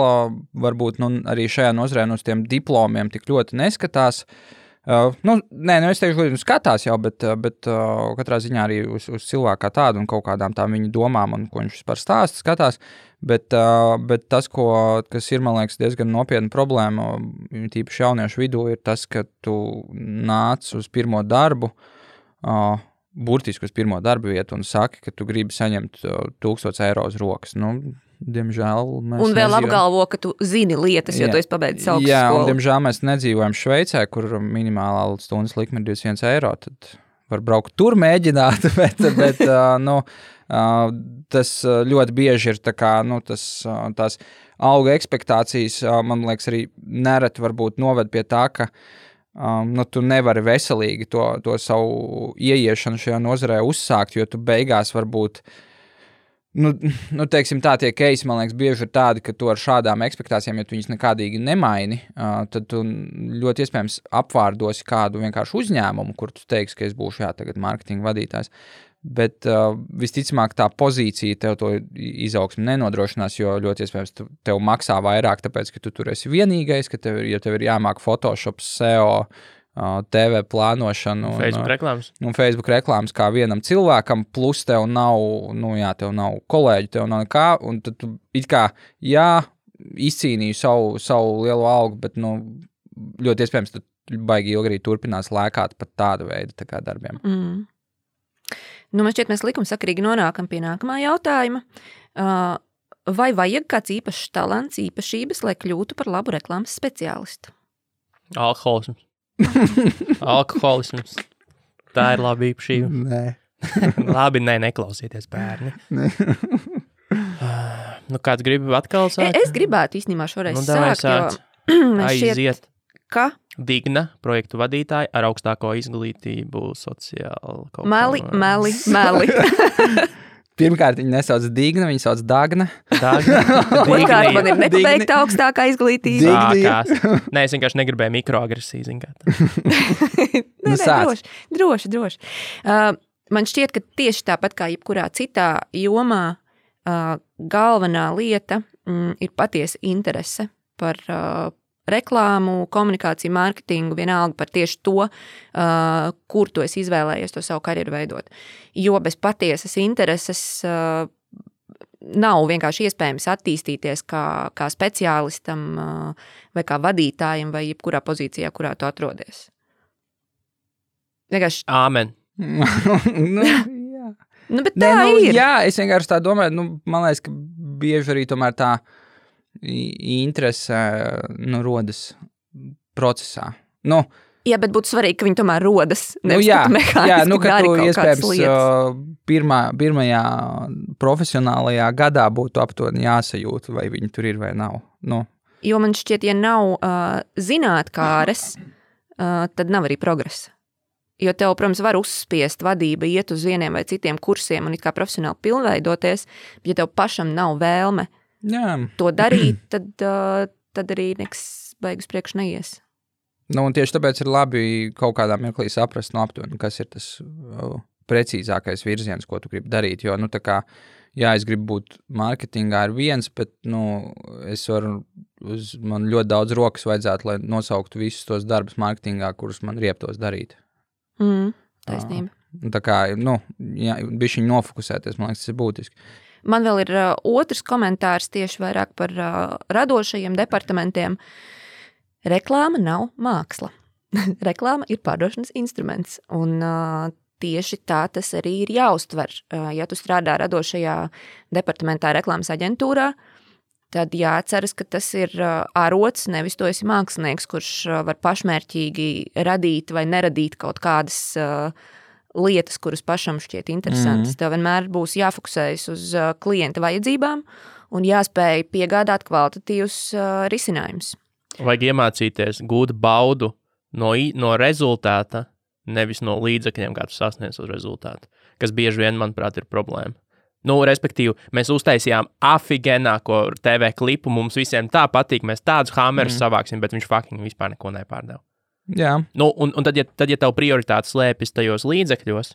varbūt arī šajā nozarē uz tiem diplomiem tik ļoti neskatās. Es teikšu, ka skatās jau, bet katrā ziņā arī uz cilvēku kā tādu un kaut kādām tām viņa domām un ko viņš vispār stāsta, skatās. Bet tas, kas ir, man liekas, diezgan nopietna problēma, tīpaši jauniešu vidū, ir tas, ka tu nāc uz pirmo darbu, burtiski uz pirmo darbu vietu un saki, ka tu gribi saņemt 1000 eiro uz rokas. Diemžēl mēs un vēl apgalvo, ka tu zini lietas, jo tu esi pabeidzis augstskolu. Jā, un diemžēl mēs nedzīvojam Šveicē, kur minimālā stundas likme ir 21 eiro, tad var braukt tur mēģināt, bet tas ļoti bieži ir tās auga ekspektācijas, man liekas, arī nereti varbūt noved pie tā, ka tu nevari veselīgi to savu ieiešanu šajā nozarē uzsākt, jo tu beigās varbūt teiksim tā, tie keisi, man liekas, bieži ir tādi, ka tu ar šādām ekspektācijām, ja tu viņas nekādīgi nemaini, tad tu ļoti iespējams apvārdosi kādu vienkārši uzņēmumu, kur tu teiksi, ka es būšu tagad marketinga vadītājs. Bet visticamāk tā pozīcija tev to izaugsmi nenodrošinās, jo ļoti iespējams tev maksā vairāk, tāpēc, ka tu tur esi vienīgais, ka tev ir jāmāk Photoshop, SEO, TV plānošanu un Facebook reklāmas kā vienam cilvēkam, plus tev nav, tev nav kolēģi, tev nav nekā, un tad tu it kā, izcīnīju savu lielo algu, bet, ļoti iespējams, tu baigi ilgi arī turpinās lēkāt pat tāda veida tā kā darbiem. Man šķiet, mēs likumsakarīgi nonākam pie nākamā jautājuma. Vai vajag kāds īpašs talants, īpašības, lai kļūtu par labu reklāmas speciālistu? Alkoholisms. Alkoholisms. Tā ir laba īpašība. Nē. Labi, neklausieties, bērni. Kāds grib atkal sākt? Es gribētu īstenībā šoreiz sākt, aiziet. Ka? Digna, projektu vadītāja ar augstāko izglītību sociāli. Meli. Pirmkārt, viņa nesauc Digna, viņa sauc Dagna. Otrkārt, man ir nepabeigta augstākā izglītība. Nē, es vienkārši negribēju mikroagresiju, zin kā. Droši. Man šķiet, ka tieši tāpat kā jebkurā citā jomā, galvenā lieta ir patiesa interese par reklāmu, komunikāciju, mārketingu, vienalga par tieši to, kur tu esi izvēlējies to savu karjeru veidot. Jo bez patiesas intereses nav vienkārši iespējams attīstīties kā speciālistam vai kā vadītājam vai jebkurā pozīcijā, kurā tu atrodies. Vienkārši... Āmen. Jā. Bet tā ir. Jā, es vienkārši tā domāju, man liekas, ka bieži arī tomēr tā interese rodas procesā. Jā, bet būtu svarīgi, ka viņi tomēr rodas. Nevis, ka tu iespējams pirmajā profesionālajā gadā būtu aptuveni jāsajūt, vai viņi tur ir vai nav. Jo man šķiet, ja nav zinātkāres, tad nav arī progresa. Jo tev, protams, var uzspiest vadība, iet uz vieniem vai citiem kursiem un it kā profesionāli pilnveidoties, bet ja tev pašam nav vēlme to darīt, tad arī nekas beigas priekš neies. Un tieši tāpēc ir labi kaut kādā mirklī saprast aptuveni, kas ir tas precīzākais virziens, ko tu gribi darīt, jo, tā kā, es gribu būt mārketingā ir viens, bet, man ļoti daudz rokas vajadzētu, lai nosauktu visus tos darbus mārketingā, kurus man rieptos darīt. Taisnība. Tā kā, bišķiņ nofokusēties, man liekas, tas ir būtiski. Man vēl ir otrs komentārs tieši vairāk par radošajiem departamentiem. Reklāma nav māksla. Reklāma ir pārdošanas instruments, un tieši tā tas arī ir jāuztver. Ja tu strādā radošajā departamentā reklāmas aģentūrā, tad jāatceras, ka tas ir arots, nevis tu esi mākslinieks, kurš var pašmērķīgi radīt vai neradīt kaut kādas lietas, kuras pašam šķiet interesantas. Tev vienmēr būs jāfokusējas uz klienta vajadzībām un jāspēj piegādāt kvalitatīvus risinājumus. Vajag iemācīties gūt baudu no rezultāta, nevis no līdzekļiem, kā tu sasniedz uz rezultātu, kas bieži vien, manuprāt, ir problēma. Respektīvi, mēs uztaisījām afigenāko TV klipu, mums visiem tā patīk, mēs tādus hamerus savāksim, bet viņš fucking vispār neko nepārdeva. Jā. Un tad, ja tev prioritāte slēpjas tajos līdzekļos,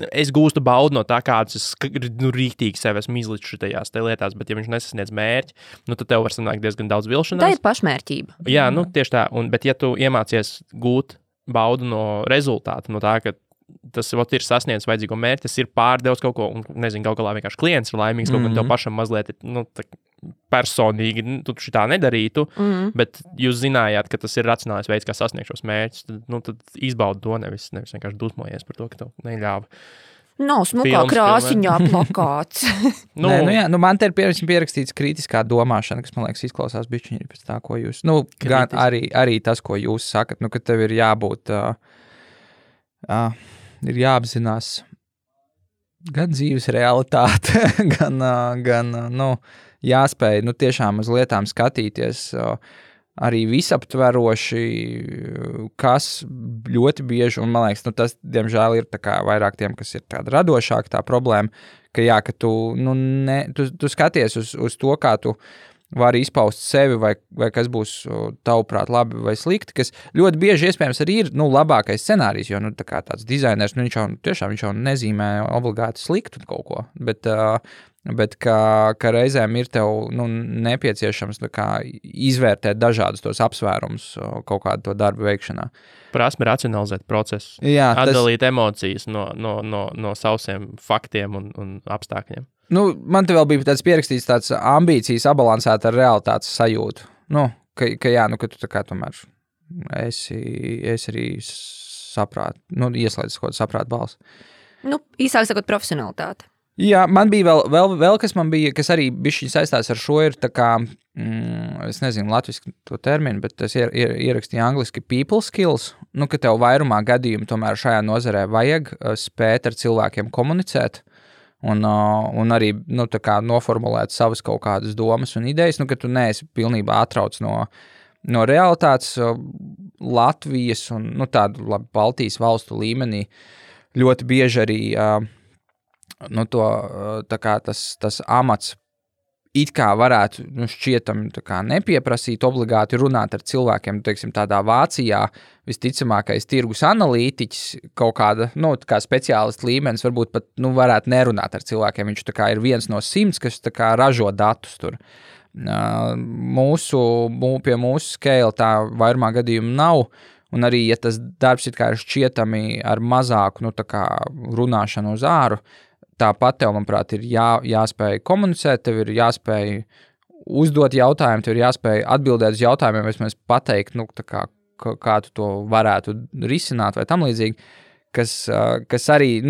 es gūstu baudu no tā, kādas es rīktīgi sev esmu izlicis šitajās lietās, bet ja viņš nesasniedz mērķi, tad tev var sanākt diezgan daudz vilšanās. Tā ir pašmērķība. Jā, tieši tā, bet ja tu iemācies gūt baudu no rezultāta, no tā, ka tas ir sasniedzis vajadzīgo mērķi, tas ir pārdevis kaut ko, un nezinu, kaut galā vienkārši klients ir laimīgs, kaut ko tev pašam mazliet personīgi, tu šitā nedarītu, bet jūs zinājāt, ka tas ir racionālais veids, kā sasniegt šos mērķus, tad izbaudi to, nevis vienkārši dusmojies par to, ka tev neļāva. Nav smukā krāsiņā plakāts. Man te ir pierakstīts kritiskā domāšana, kas, man liekas, izklausās bišķiņi pēc tā, ko jūs, gan arī tas, ko jūs sakat, ka tev ir jābūt, ir jāapzinās gan dzīves realitāte, gan jāspēj, tiešām uz lietām skatīties arī visaptveroši, kas ļoti bieži, un man liekas, tas, diemžēl, ir tā kā vairāk tiem, kas ir tāda radošāka tā problēma, ka tu, tu skaties uz to, kā tu vari izpaust sevi, vai kas būs tavuprāt labi vai slikti, kas ļoti bieži iespējams arī ir, labākais scenārijs, jo, tā kā tāds dizainers, viņš jau nezīmē obligāti sliktu kaut ko, bet ka reizēm ir tev, nepieciešams izvērtēt dažādus tos apsvērumus kaut kādu to darbu veikšanā. Prasme racionalizēt procesu, atdalīt emocijas no sausiem faktiem un apstākļiem. Man te vēl bija tāds pierakstīts tāds ambīcijas sabalansēt ar realitātes sajūtu. Ka tu tā kā tomēr esi arī ieslēdzis kaut kādu saprātu balsi. Īsāk sakot, profesionalitāte. Jā, man bija vēl kas arī bišķiņ saistās ar šo, ir tā kā, es nezinu latviski to terminu, bet es ierakstīju angliski people skills, ka tev vairumā gadījumu tomēr šajā nozarē vajag spēt ar cilvēkiem komunicēt, un arī, tā kā noformulēt savas kaut kādas domas un idejas, ka tu neesi pilnībā atrauc no realitātes Latvijas un, tādu labi Baltijas valstu līmenī ļoti bieži arī, tā kā tas amats it kā varētu, šķietam, tā kā nepieprasīt obligāti runāt ar cilvēkiem, teiksim, tādā Vācijā visticamākais tirgus analītiķis kaut kāda, tā kā speciālists līmenis, varbūt pat, varētu nerunāt ar cilvēkiem, viņš tā kā ir viens no 100, kas tā kā ražo datus tur. Pie mūsu scale tā vairumā gadījumu nav, un arī, ja tas darbs it kā ir šķietami ar mazāku, tā kā runāšanu uz āru, tāpat tev, manuprāt, ir jāspēj komunicēt, tev ir jāspēj uzdot jautājumu, tev ir jāspēj atbildēt uz jautājumiem, vismaz pateikt, kā tu to varētu risināt vai tam līdzīgi, kas arī,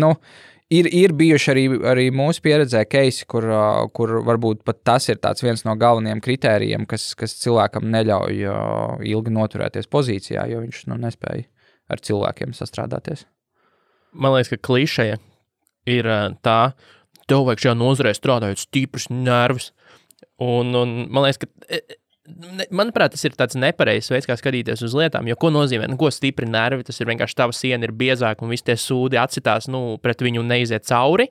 Ir bijuši arī mūsu pieredzē keisi, kur varbūt pat tas ir tāds viens no galvenajiem kritērijiem, kas cilvēkam neļauj ilgi noturēties pozīcijā, jo viņš nespēja ar cilvēkiem sastrādāties. Man liekas, ka klišeja ir tā, tev vajag šajā nozarē strādājot stiprus nervus. Un man liekas, ka manuprāt, tas ir tāds nepareizs veids, kā skatīties uz lietām, jo ko nozīmē, ko stipri nervi, tas ir vienkārši tava siena ir biezāka un visi tie sūdi atsitās, pret viņu neiziet cauri.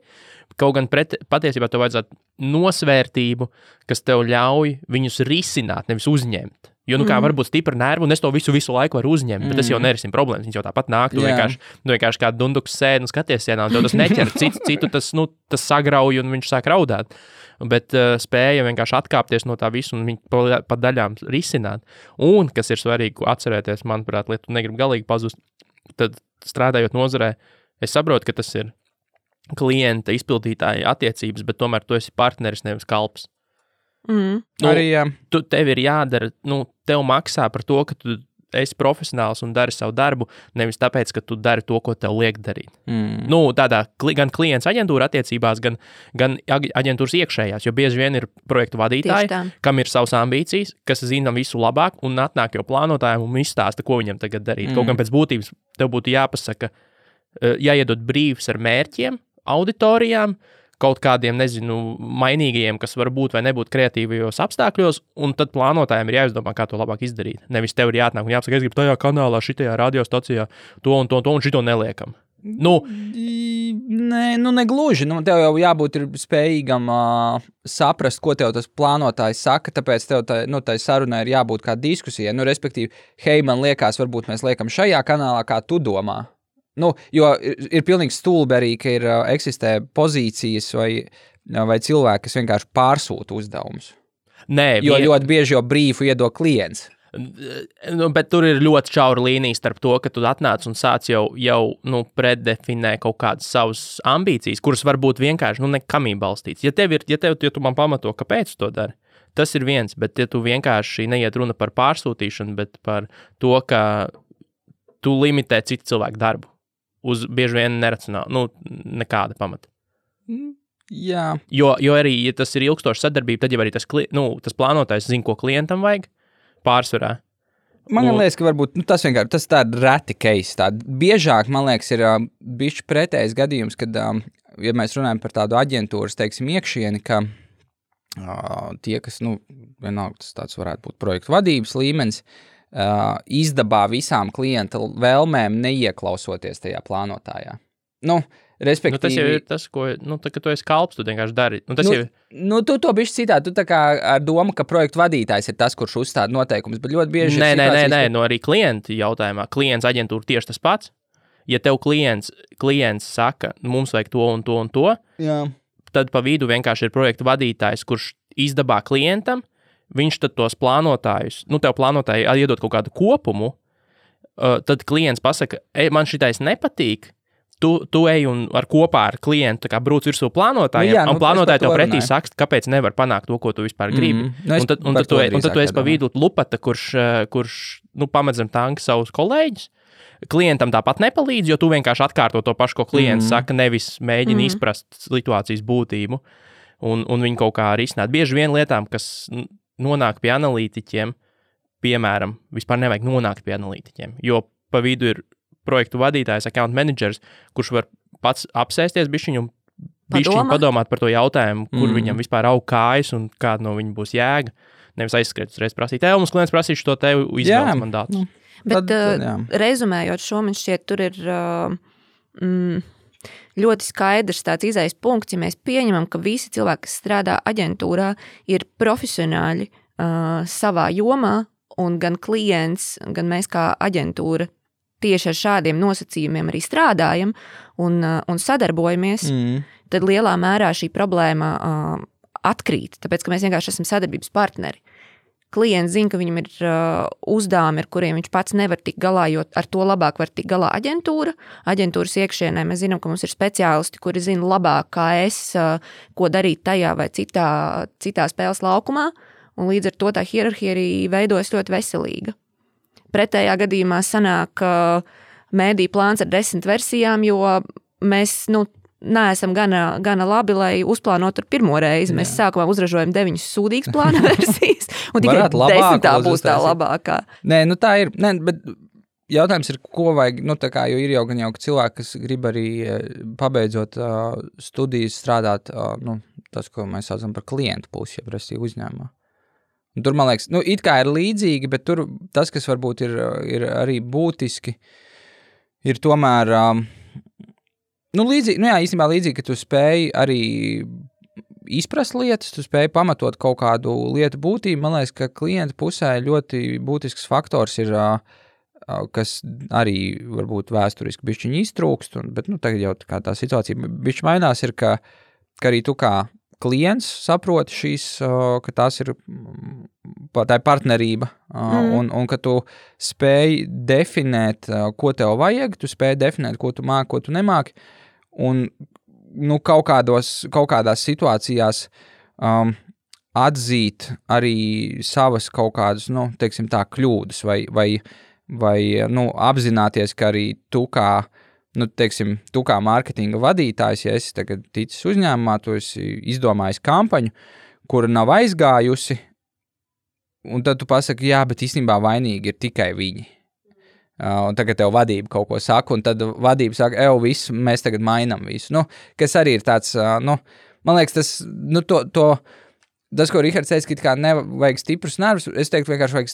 Kaut gan patiesībā tev vajadzētu nosvērtību, kas tev ļauj viņus risināt, nevis uzņemt. Jo, kā var būt stipra nerva, un es to visu laiku varu uzņemt, bet tas jau nerisina problēmas, viņš jau tāpat nāk, tu vienkārši kā dunduks sēdi un skaties sienā, un tev tas neķer, citu tas sagrauj un viņš sāk raudāt. Bet spēja vienkārši atkāpties no tā visu un viņu pa daļām risināt. Un, kas ir svarīgi atcerēties, manuprāt, lai tu negribi galīgi pazust, tad strādājot nozarē, es saprotu, ka tas ir klienta izpildītāja attiecības, bet tomēr tu esi partneris, nevis kalps. Arī, jā. Tev ir jādara, tev maksā par to, ka tu esi profesionāls un dari savu darbu, nevis tāpēc, ka tu dari to, ko tev liek darīt. Tādā gan klients aģentūra attiecībās, gan aģentūras iekšējās, jo bieži vien ir projektu vadītāji, kam ir savas ambīcijas, kas zina visu labāk un atnāk jau plānotājiem un izstāsta, ko viņam tagad darīt. Kaut gan pēc būtības tev būtu jāpasaka, jāiedod brīvs ar mērķiem, auditorijām, kaut kādiem, mainīgajiem, kas var būt vai nebūt kreatīvajos apstākļos, un tad plānotājiem ir jāizdomā, kā to labāk izdarīt. Nevis tev ir jāatnāk un jāpasaka, es gribu tajā kanālā, šitajā radiostacijā, to un šito neliekam. Negluži. Tev jau jābūt spējīgam saprast, ko tev tas plānotājs saka, tāpēc tev tai sarunai ir jābūt kā diskusijai. Respektīvi, hei, man liekas, varbūt mēs liekam šajā kanālā, kā tu domā. Jo ir pilnīgi stulbi arī, ka eksistē pozīcijas vai cilvēki, kas vienkārši pārsūta uzdevumus. Jo ļoti bieži jau brīfu iedod klients. Bet tur ir ļoti šaura līnija starp to, ka tu atnāc un sāc jau preddefinē kaut kādas savas ambīcijas, kuras varbūt vienkārši nekamī balstīts. Ja tu man pamato, kāpēc tu to dari, tas ir viens, bet ja tu vienkārši neiet runa par pārsūtīšanu, bet par to, ka tu limitē citu cilvēku darbu. Uz bieži vien neracionāli, nekāda pamata. Jā. Jo arī, ja tas ir ilgstoša sadarbība, tad jau arī tas plānotājs zina, ko klientam vajag pārsvarā. Man liekas, ka varbūt tas vienkārši tas tāda reti case. Biežāk, man liekas, ir bišķi pretējs gadījums, kad, ja mēs runājam par tādu aģentūras, teiksim, iekšieni, ka tie, kas, vienalga tas tāds varētu būt projektu vadības līmenis, izdabā visām klienta vēlmēm neieklausoties tajā plānotājā. Respektīvi... tas jau ir tas, ko, ka tu esi kalps, tu vienkārši dari. Tu to bišķi citādi, tu tā kā ar domu, ka projektu vadītājs ir tas, kurš uzstāda noteikumus, bet ļoti bieži Nē, arī klienta jautājumā. Klients aģentūra tieši tas pats. Ja tev klients saka, mums vajag to un to un to, jā. Tad pa vidu vienkārši ir projektu vadītājs, kurš izdabā klientam, viņš tad tos plānotājus, tev plānotāji iedod kaut kādu kopumu, tad klients pasaka, man šitais nepatīk, tu ej un kopā ar klientu brūc virsū plānotājiem, un plānotāji tev pretī saka, kāpēc nevar panākt to, ko tu vispār gribi. Un tad tu esi pa vidu lupata, kurš pamedzam tanki savus kolēģus. Klientam tāpat nepalīdz, jo tu vienkārši atkārto to pašu, ko klients saka, nevis mēģini izprast situācijas būtību un viņu kaut kā risināt. Bieži vien lietām, kas nonāk pie analītiķiem, piemēram, vispār nevajag nonākt pie analītiķiem, jo pa vidu ir projektu vadītājs, account managers, kurš var pats apsēsties bišķiņu un padomāt par to jautājumu, kur viņam vispār aug kājas un kāda no viņa būs jēga. Nevis aizskriet uzreiz prasīt, mums klients prasīšu to tev izvēles mandātus. Bet rezumējot šo, man šķiet, tur ir ļoti skaidrs tāds izējas punkts, ja mēs pieņemam, ka visi cilvēki, kas strādā aģentūrā, ir profesionāļi savā jomā, un gan klients, gan mēs kā aģentūra tieši ar šādiem nosacījumiem arī strādājam un sadarbojamies, tad lielā mērā šī problēma atkrīt, tāpēc, ka mēs vienkārši esam sadarbības partneri. Klients zina, ka viņam ir uzdevumi, ar kuriem viņš pats nevar tikt galā, jo ar to labāk var tikt galā aģentūra. Aģentūras iekšienē mēs zinām, ka mums ir speciālisti, kuri zina labāk, kā ko darīt tajā vai citā spēles laukumā, un līdz ar to tā hierarhija arī veidojas ļoti veselīga. Pretējā gadījumā sanāk mēdī plāns ar 10 versijām, jo mēs neesam gana labi, lai uzplānotu pirmo reizi. Mēs sākumā uzražojam 9 sūdīgas plāna versijas, un tikai 10. būs tā labākā. Nē, nu tā ir, bet jautājums ir, ko vajag, nu tā kā, jo ir jau gan cilvēki, kas grib arī pabeidzot studijas strādāt, nu, tas, ko mēs saucam par klientu pusi, ja prasī uzņēmumā. Un tur, man liekas, nu, it kā ir līdzīgi, bet tur tas, kas varbūt ir arī būtiski, ir tomēr, nu, līdzīgi, nu jā, īstenībā līdzīgi, ka tu spēj arī izprast lietas, tu spēj pamatot kaut kādu lietu būtību. Man liekas, ka klienta pusē ļoti būtisks faktors ir, kas arī varbūt vēsturiski bišķiņi iztrūkst, bet, nu, tagad jau tā situācija bišķi mainās, ir, ka arī tu kā klients saproti šīs, ka tās ir tā partnerība, un ka tu spēj definēt, ko tev vajag, tu spēj definēt, ko tu māki, ko tu nemāki, un nu, kaut kādās situācijās atzīt arī savas kaut kādas, nu, teiksim tā, kļūdas, vai nu, apzināties, ka arī tu kā, nu, teiksim, tu kā mārketinga vadītājs, ja esi tagad ticis uzņēmumā, tu esi izdomājis kampaņu, kura nav aizgājusi, un tad tu pasaki, jā, bet īstenībā vainīgi ir tikai viņi. Un tagad tev vadība kaut ko saka, un tad vadība saka, viss, mēs tagad mainam visu. Nu, kas arī ir tāds, nu, man liekas, tas, nu, tas, ko Rihards teica, ka kā nevajag stiprus nervus, es teiktu, vienkārši vajag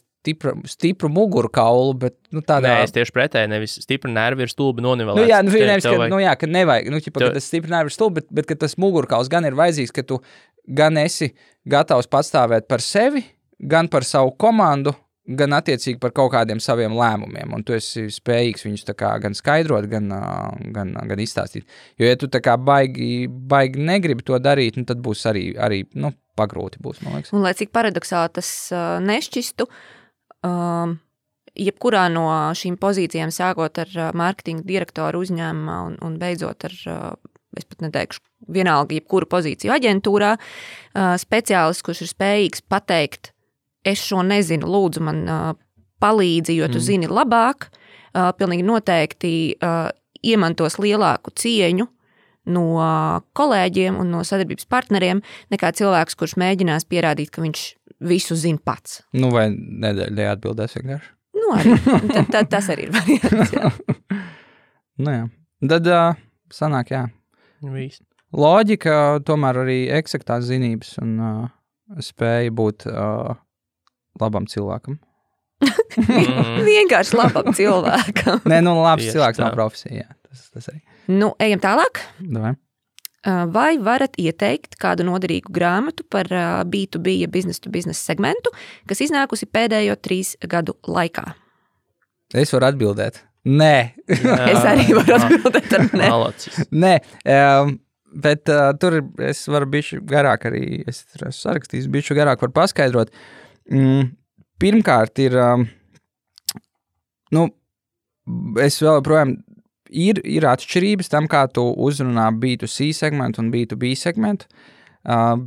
stipru muguru kaulu, bet, nu, tādā... Nē, es tieši pretēji, nevis stipru nervi ir stulbi nonivelēts. Nu, jā, nu, nevis, ka, nu, jā, ka nevajag, nu, ķipa, ka tas stipru nervi ir stulbi, bet ka tas muguru kauls gan ir vajadzīgs, ka tu gan esi gatavs patstāvēt par sevi, gan par savu komandu, gan attiecīgi par kaut kādiem saviem lēmumiem, un tu esi spējīgs viņus tā kā gan skaidrot, gan izstāstīt. Jo, ja tu tā kā baigi negribi to darīt, nu, tad būs arī nu, pagrūti būs, man liekas. Un, lai cik paradoksāli tas nešķistu, jebkurā no šīm pozīcijām, sākot ar mārketinga direktoru uzņēmumā un beidzot ar, es pat neteikšu, vienalga jebkuru pozīciju aģentūrā, speciālists, kurš ir spējīgs pateikt, es šo nezinu, lūdzu man palīdzi, jo tu zini labāk, pilnīgi noteikti iemantos lielāku cieņu no kolēģiem un no sadarbības partneriem, nekā cilvēks, kurš mēģinās pierādīt, ka viņš visu zina pats. Nu, vai nedēļ atbildēs vienkārši? Nu, arī. Tas arī ir variants, jā. Nu, jā. Tad sanāk, jā. Viss. Loģika, tomēr arī eksaktās zinības un spēja būt labam cilvēkam. Vienkārši labam cilvēkam. Nē, nu, labs cilvēks nav profesija, jā. Tas arī. Nu, ejam tālāk. Davai. Vai varat ieteikt kādu noderīgu grāmatu par B2B, ja business-to-business segmentu, kas iznākusi pēdējo 3 gadu laikā? Es varu atbildēt. Nē. Es arī varu atbildēt ar nē. Nē, bet tur es varu bišķi garāk arī, es sarakstījis, bišķi garāk varu paskaidrot. Pirmkārt ir, nu, es vēl projām ir atšķirības tam, kā tu uzrunā B2C segmentu un B2B segmentu,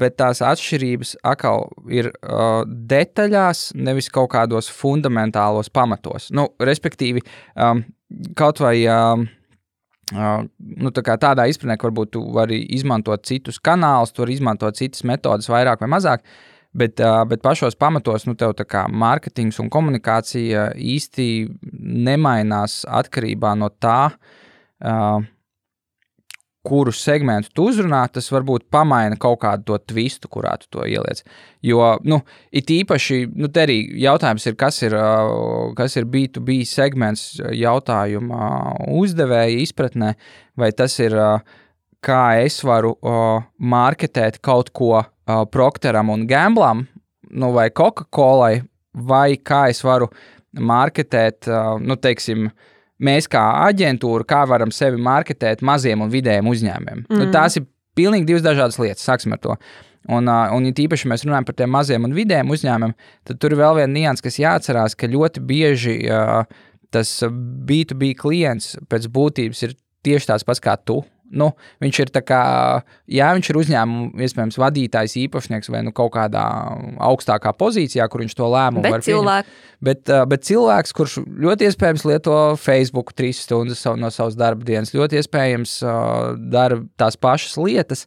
bet tās atšķirības atkal ir detaļās, nevis kaut kādos fundamentālos pamatos. Nu, respektīvi, kaut vai nu, tā kā tādā izpratnē, ka varbūt tu vari izmantot citus kanālus, tu vari izmantot citas metodas vairāk vai mazāk, bet pašos pamatos, nu, tev tā kā mārketings un komunikācija īsti nemainās atkarībā no tā, kuru segmentu tu uzrunā, tas varbūt pamaina kaut kādu to twistu, kurā tu to ieliec. Jo, nu, it īpaši, nu, te arī jautājums ir, kas ir B2B segments jautājuma uzdevēja izpratnē, vai tas ir, kā es varu marketēt kaut ko Procteram un Gamblam, nu, vai Coca-Colai, vai kā es varu marketēt, nu, teiksim, mēs kā aģentūra, kā varam sevi marketēt maziem un vidējiem uzņēmumiem. Nu, tās ir pilnīgi 2 dažādas lietas, sāksim ar to. Un ja tīpaši mēs runājam par tiem maziem un vidējiem uzņēmumiem, tad tur ir vēl viena nianses, kas jāatcerās, ka ļoti bieži tas B2B klients pēc būtības ir tieši tāds pats kā tu. Nu, viņš ir tā kā, viņš ir uzņēmuma, iespējams, vadītājs, īpašnieks vai kaut kādā augstākā pozīcijā, kur viņš to lēmumu var pieņemt. Bet cilvēks, kurš ļoti iespējams lieto Facebook 3 stundas no savas darba dienas, ļoti iespējams dara tās pašas lietas,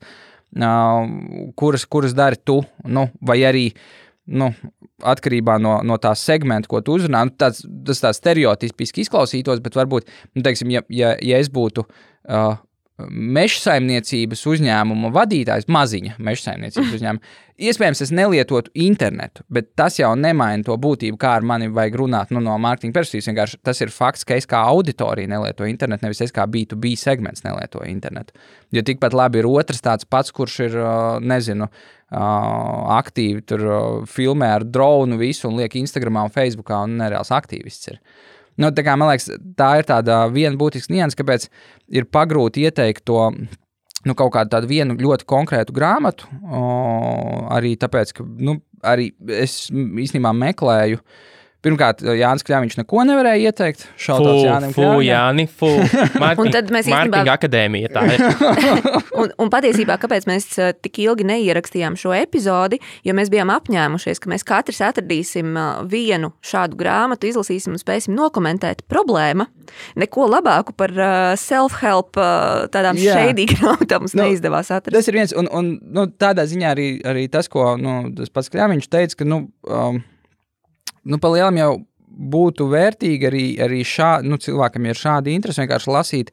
kuras dari tu, vai arī atkarībā no tā segmenta, ko tu uzrunā, tas tā stereotipiski izklausītos, bet varbūt, teiksim, ja es būtu mežsaimniecības uzņēmuma vadītājs, maziņa mežsaimniecības uzņēmuma, iespējams, es nelietotu internetu, bet tas jau nemaina to būtību, kā ar mani vajag runāt no mārketinga perspektīvas. Vienkārši tas ir fakts, ka es kā auditorija nelieto internetu, nevis es kā B2B segments nelieto internetu. Jo tikpat labi ir otrs tāds pats, kurš ir, aktīvi tur filmē ar dronu visu un liek Instagramā un Facebookā un nereāls aktīvists ir. Tā kā, man liekas, tā ir tāda viena būtiska nianses, kāpēc ir pagrūti ieteikt to, kaut kādu tādu vienu ļoti konkrētu grāmatu, arī tāpēc, ka, arī es īstenībā meklēju. Pirmkārt, Jānis Kļaviņš neko nevarēja ieteikt. Šautauts Jānim Kļaviņam. Mārketinga akadēmija tā ir. un patiesībā, kāpēc mēs tik ilgi neierakstījām šo epizodi, jo mēs bijām apņēmušies, ka mēs katrs atradīsim vienu šādu grāmatu, izlasīsim un spēsim nokomentēt problēma. Neko labāku par self-help tādām shady grāmatām mums neizdevās atrast. Tas ir viens, un tādā ziņā arī tas, ko tas pats Kļaviņš teica, ka, pa lielam jau būtu vērtīgi arī cilvēkam ir šādi interesi vienkārši lasīt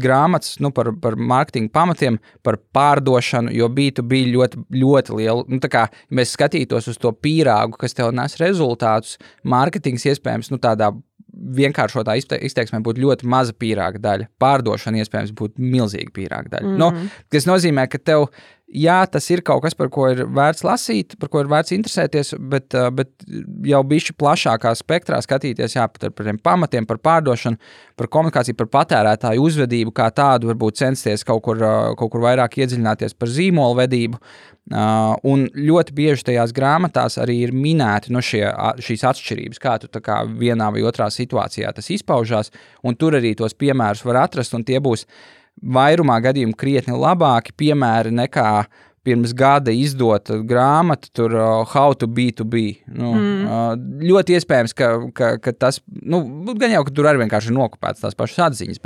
grāmatas par mārketinga pamatiem, par pārdošanu, jo B2B ļoti, ļoti lielu. Tā kā mēs skatītos uz to pīrāgu, kas tev nes rezultātus, mārketings iespējams tādā vienkāršotā izteiksmē būtu ļoti maza pīrāga daļa. Pārdošana iespējams būtu milzīga pīrāga daļa. Tas nozīmē, ka tev tas ir kaut kas, par ko ir vērts lasīt, par ko ir vērts interesēties, bet jau bišķi plašākā spektrā skatīties par tiem pamatiem, par pārdošanu, par komunikāciju, par patērētāju uzvedību, kā tādu varbūt censties kaut kur vairāk iedziļināties par zīmolu vedību. Un ļoti bieži tajās grāmatās arī ir minēti šīs atšķirības, kā tu tā kā vienā vai otrā situācijā tas izpaužās, un tur arī tos piemērus var atrast, un tie būs vairumā gadījumu krietni labāki piemēri nekā pirms gada izdota grāmata, tur How to B2B. Ļoti iespējams, ka tas, gan jau, ka tur arī vienkārši ir nokopēts tās pašas atziņas,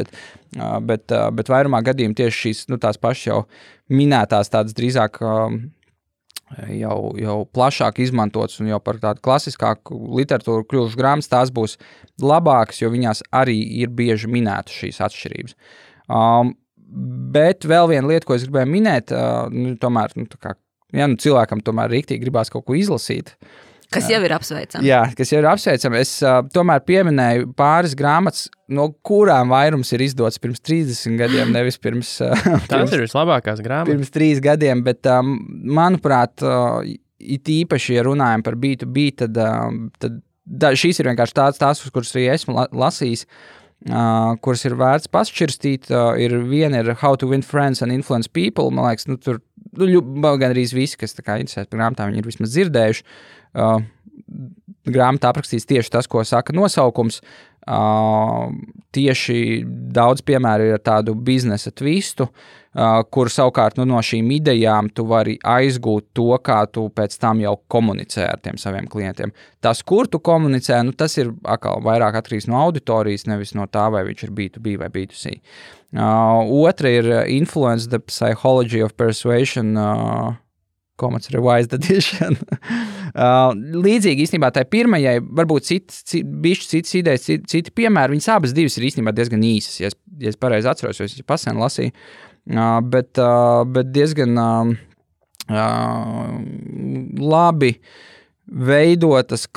bet vairumā gadījumu tieši šīs, tās pašas jau minētās tādas drīzāk jau plašāk izmantotas un jau par tādu klasiskāku literatūru kļuvušas grāmatas, tās būs labākas, jo viņās arī ir bieži minētas šīs atšķirības. Bet vēl viena lieta, ko es gribēju minēt, tomēr, cilvēkam tomēr riktīgi gribās kaut ko izlasīt. Kas jau ir apsveicami. Jā, kas jau ir apsveicami. Es tomēr pieminēju pāris grāmatas, no kurām vairums ir izdots pirms 30 gadiem, nevis pirms... Tās ir vislabākās grāmatas. Pirms 3 gadiem, bet, manuprāt, it īpaši, ja runājam par B2B, tad šīs ir vienkārši tās, kuras arī esmu lasījis, kuras ir vērts pašķirstīt. Viena ir How to Win Friends and Influence People. Man liekas, tur gan arī visi, kas tā kā interesēs par grāmatām, viņi ir vismaz dzirdējuši. Grāmatā aprakstīts tieši tas, ko saka nosaukums. Tieši daudz piemēru ir tādu biznesa twistu, kur savukārt no šīm idejām tu vari aizgūt to, kā tu pēc tam jau komunicē ar tiem saviem klientiem. Tas, kur tu komunicē, tas ir atkal vairāk atkarīgs no auditorijas, nevis no tā, vai viņš ir B2B vai B2C. Otra ir Influence the Psychology of Persuasion, Commons Revised Edition. Līdzīgi īstenībā tai pirmajai, varbūt citas idejas, citi piemēri, viņas abas divas ir īstenībā diezgan īsas, ja es pareizi atceros, jo es pasen lasīju, bet diezgan labi veidotas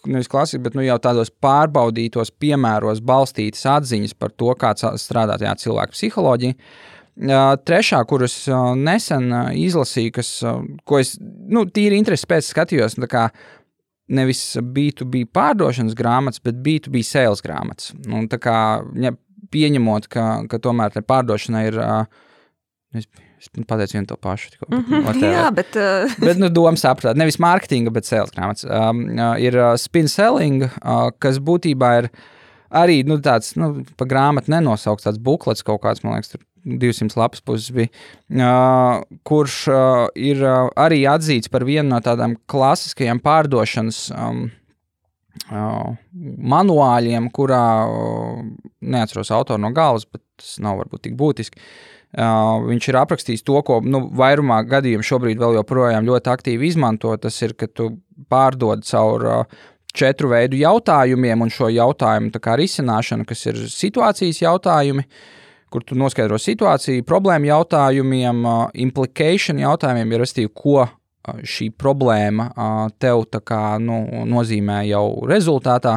nevis klasiski, bet jau tādos pārbaudītos piemēros balstītas atziņas par to, kā strādā tajā cilvēka psiholoģija. Trešā, kuras nesen izlasīju, ko es tīri interesi pēc skatījos, kā nevis B2B pārdošanas grāmatas, bet B2B sales grāmatas. Tā kā pieņemot, ka tomēr te pārdošana ir, es pateicu vienu to pašu. Jā, bet... bet doma saprāt, nevis mārketinga, bet sales grāmatas. Ir spin selling, kas būtībā ir arī, tāds, pa grāmatu nenosaukts tāds buklets kaut kāds, man liekas, tur 200 lapas puses bija, kurš ir arī atzīts par vienu no tādām klasiskajām pārdošanas manuāļiem, kurā neatceros autoru no galvas, bet tas nav varbūt tik būtiski. Viņš ir aprakstījis to, ko vairumā gadījumu šobrīd vēl joprojām ļoti aktīvi izmanto. Tas ir, ka tu pārdod caur 4 veidu jautājumiem un šo jautājumu tā kā risināšanu, kas ir situācijas jautājumi, kur tu noskaidro situāciju, problēmu jautājumiem, implication jautājumiem, ir restīvi, ko šī problēma tev tā kā nozīmē jau rezultātā,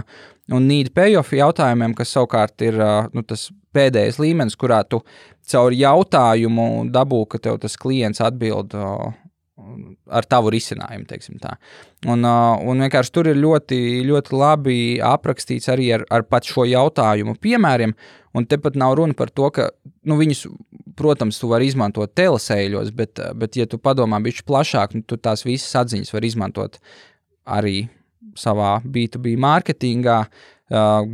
un need payoff jautājumiem, kas savukārt ir tas pēdējais līmenis, kurā tu caur jautājumu dabū, ka tev tas klients atbild ar tavu risinājumu, teiksim tā. Un vienkārši tur ir ļoti, ļoti labi aprakstīts arī ar pat šo jautājumu piemēriem, un tepat nav runa par to, ka viņus, protams, tu vari izmantot telesēļos, bet ja tu padomā bišķi plašāk, tu tās visas atziņas var izmantot arī savā B2B mārketingā,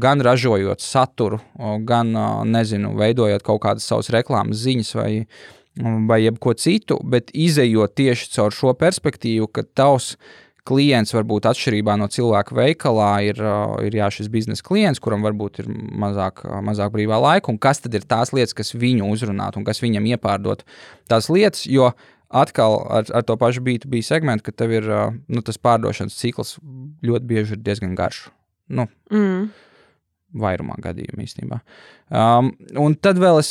gan ražojot saturu, gan, veidojot kaut kādas savas reklāmas ziņas vai jebko citu, bet izejot tieši caur šo perspektīvu, ka tavs klients varbūt atšķirībā no cilvēka veikalā ir šis biznesa klients, kuram varbūt ir mazāk brīvā laika, un kas tad ir tās lietas, kas viņu uzrunāt un kas viņam iepārdot tās lietas, jo atkal ar to pašu B2B segmentu, ka tev ir tas pārdošanas cikls ļoti bieži ir diezgan garš. Vairumā gadījumu īstenībā. Un tad vēl es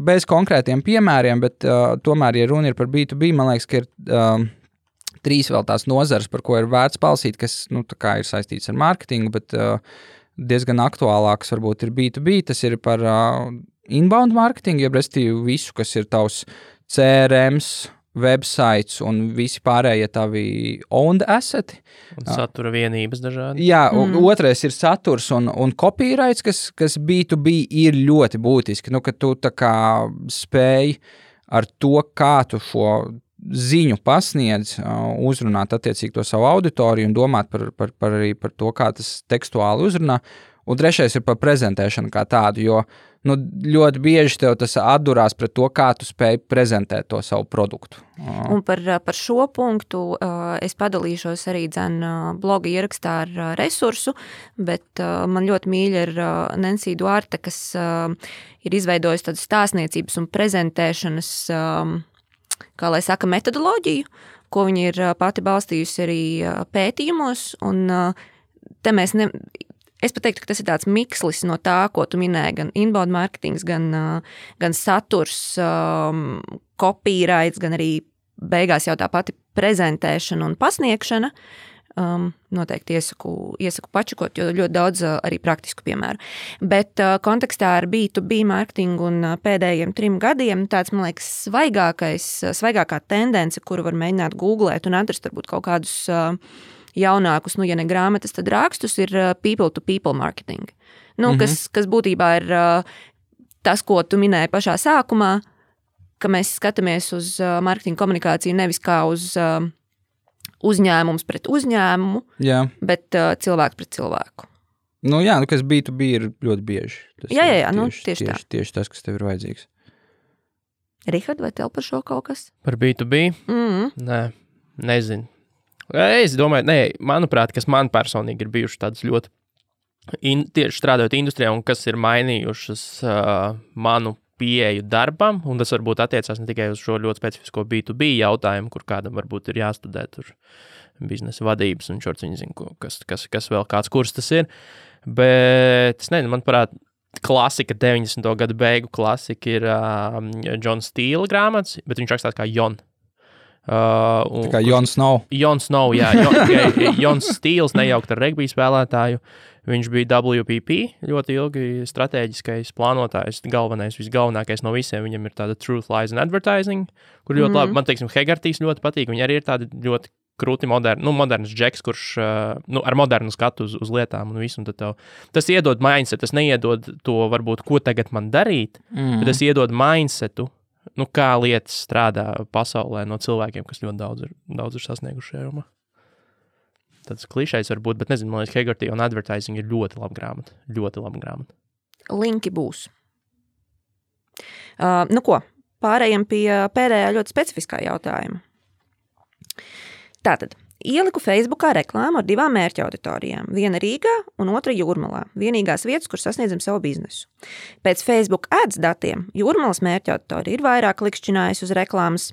bez konkrētiem piemēriem, bet tomēr, ja runa ir par B2B, man liekas, ka ir 3 vēl tās nozares, par ko ir vērts palasīt, kas tā kā ir saistīts ar mārketingu, bet diezgan aktuālāks varbūt ir B2B. Tas ir par inbound mārketingu, jeb restīvi visu, kas ir tavs CRMs, websites un visi pārējie tavi owned asseti. Un satura vienības dažādi. Jā, otrais ir saturs un copyrights, kas B2B ir ļoti būtiski. Ka tu tā kā spēj ar to, kā tu šo ziņu pasniedz, uzrunāt attiecīgi to savu auditoriju un domāt arī par to, kā tas tekstuāli uzrunā. Un trešais ir par prezentēšanu kā tādu, jo ļoti bieži tev tas atdurās pret to, kā tu spēj prezentēt to savu produktu. Un par šo punktu es padalīšos arī bloga ierakstā ar resursu, bet man ļoti mīļa ir Nancy Duarte, kas ir izveidojusi tādu stāstniecības un prezentēšanas kā lai saka, metodoloģiju, ko viņi ir pati balstījusi arī pētījumos, un te es pat teiktu, ka tas ir tāds mikslis no tā, ko tu minēji, gan inbound marketings, gan saturs, copyrights, gan arī beigās jau tā pati prezentēšana un pasniegšana. Noteikti iesaku pačakot, jo ļoti daudz arī praktisku piemēru. Bet kontekstā ar B2B mārketingu un pēdējiem 3 gadiem tāds, man liekas, svaigākā tendence, kuru var mēģināt googlēt un atrast varbūt kaut kādus jaunākus, ja ne grāmatas, tad rakstus, ir people-to-people marketing. Kas būtībā ir tas, ko tu minēji pašā sākumā, ka mēs skatāmies uz mārketinga komunikāciju nevis kā uz uzņēmums pret uzņēmumu, bet cilvēks pret cilvēku. Kas B2B ir ļoti bieži. Tieši tā. Tieši tas, kas tev ir vajadzīgs. Rihard, vai tev par šo kaut kas? Par B2B? Nē, nezinu. Es domāju, manuprāt, kas man personīgi ir bijuši tādas ļoti tieši strādājot industrijā un kas ir mainījušas manu pieeju darbam, un tas varbūt attiecās ne tikai uz šo ļoti specifisko B2B jautājumu, kur kādam varbūt ir jāstudē tur biznesa vadības un šorts viņi zina, kas vēl kāds kurs tas ir, bet es nezinu, manuprāt, klasika, 90. gadu beigu klasika ir John Steele grāmatas, bet viņš rakstās kā Jon. Tā kā Jon Snow. Jon Snow, jā. Jons Steels nejaukt ar regbija spēlētāju. Viņš bija WPP, ļoti ilgi strateģiskais plānotājs, visgalvenākais no visiem. Viņam ir tāda Truth, Lies and Advertising, kur ļoti labi, man teiksim, Hegartīs ļoti patīk. Viņi arī ir tādi ļoti krūti moderns džeks, kurš ar modernu skatu uz lietām un visu. Un tas iedod mindset, tas neiedod to varbūt, ko tagad man darīt, bet tas iedod mindsetu, kā lietas strādā pasaulē no cilvēkiem, kas ļoti daudz ir sasnieguši šajā jomā. Tāds klišejs var būt, bet nezinu, man liekas, Hegarty un Advertising ir ļoti laba grāmata. Ļoti laba grāmata. Linki būs. Pārējiem pie pēdējā ļoti specifiskā jautājuma. Tātad, ieliku Facebookā reklāmu ar 2 mērķa auditorijām. Viena Rīgā un otra Jūrmalā. Vienīgās vietas, kur sasniedzam savu biznesu. Pēc Facebook ads datiem Jūrmalas mērķa auditorija ir vairāk klikšķinājusi uz reklāmas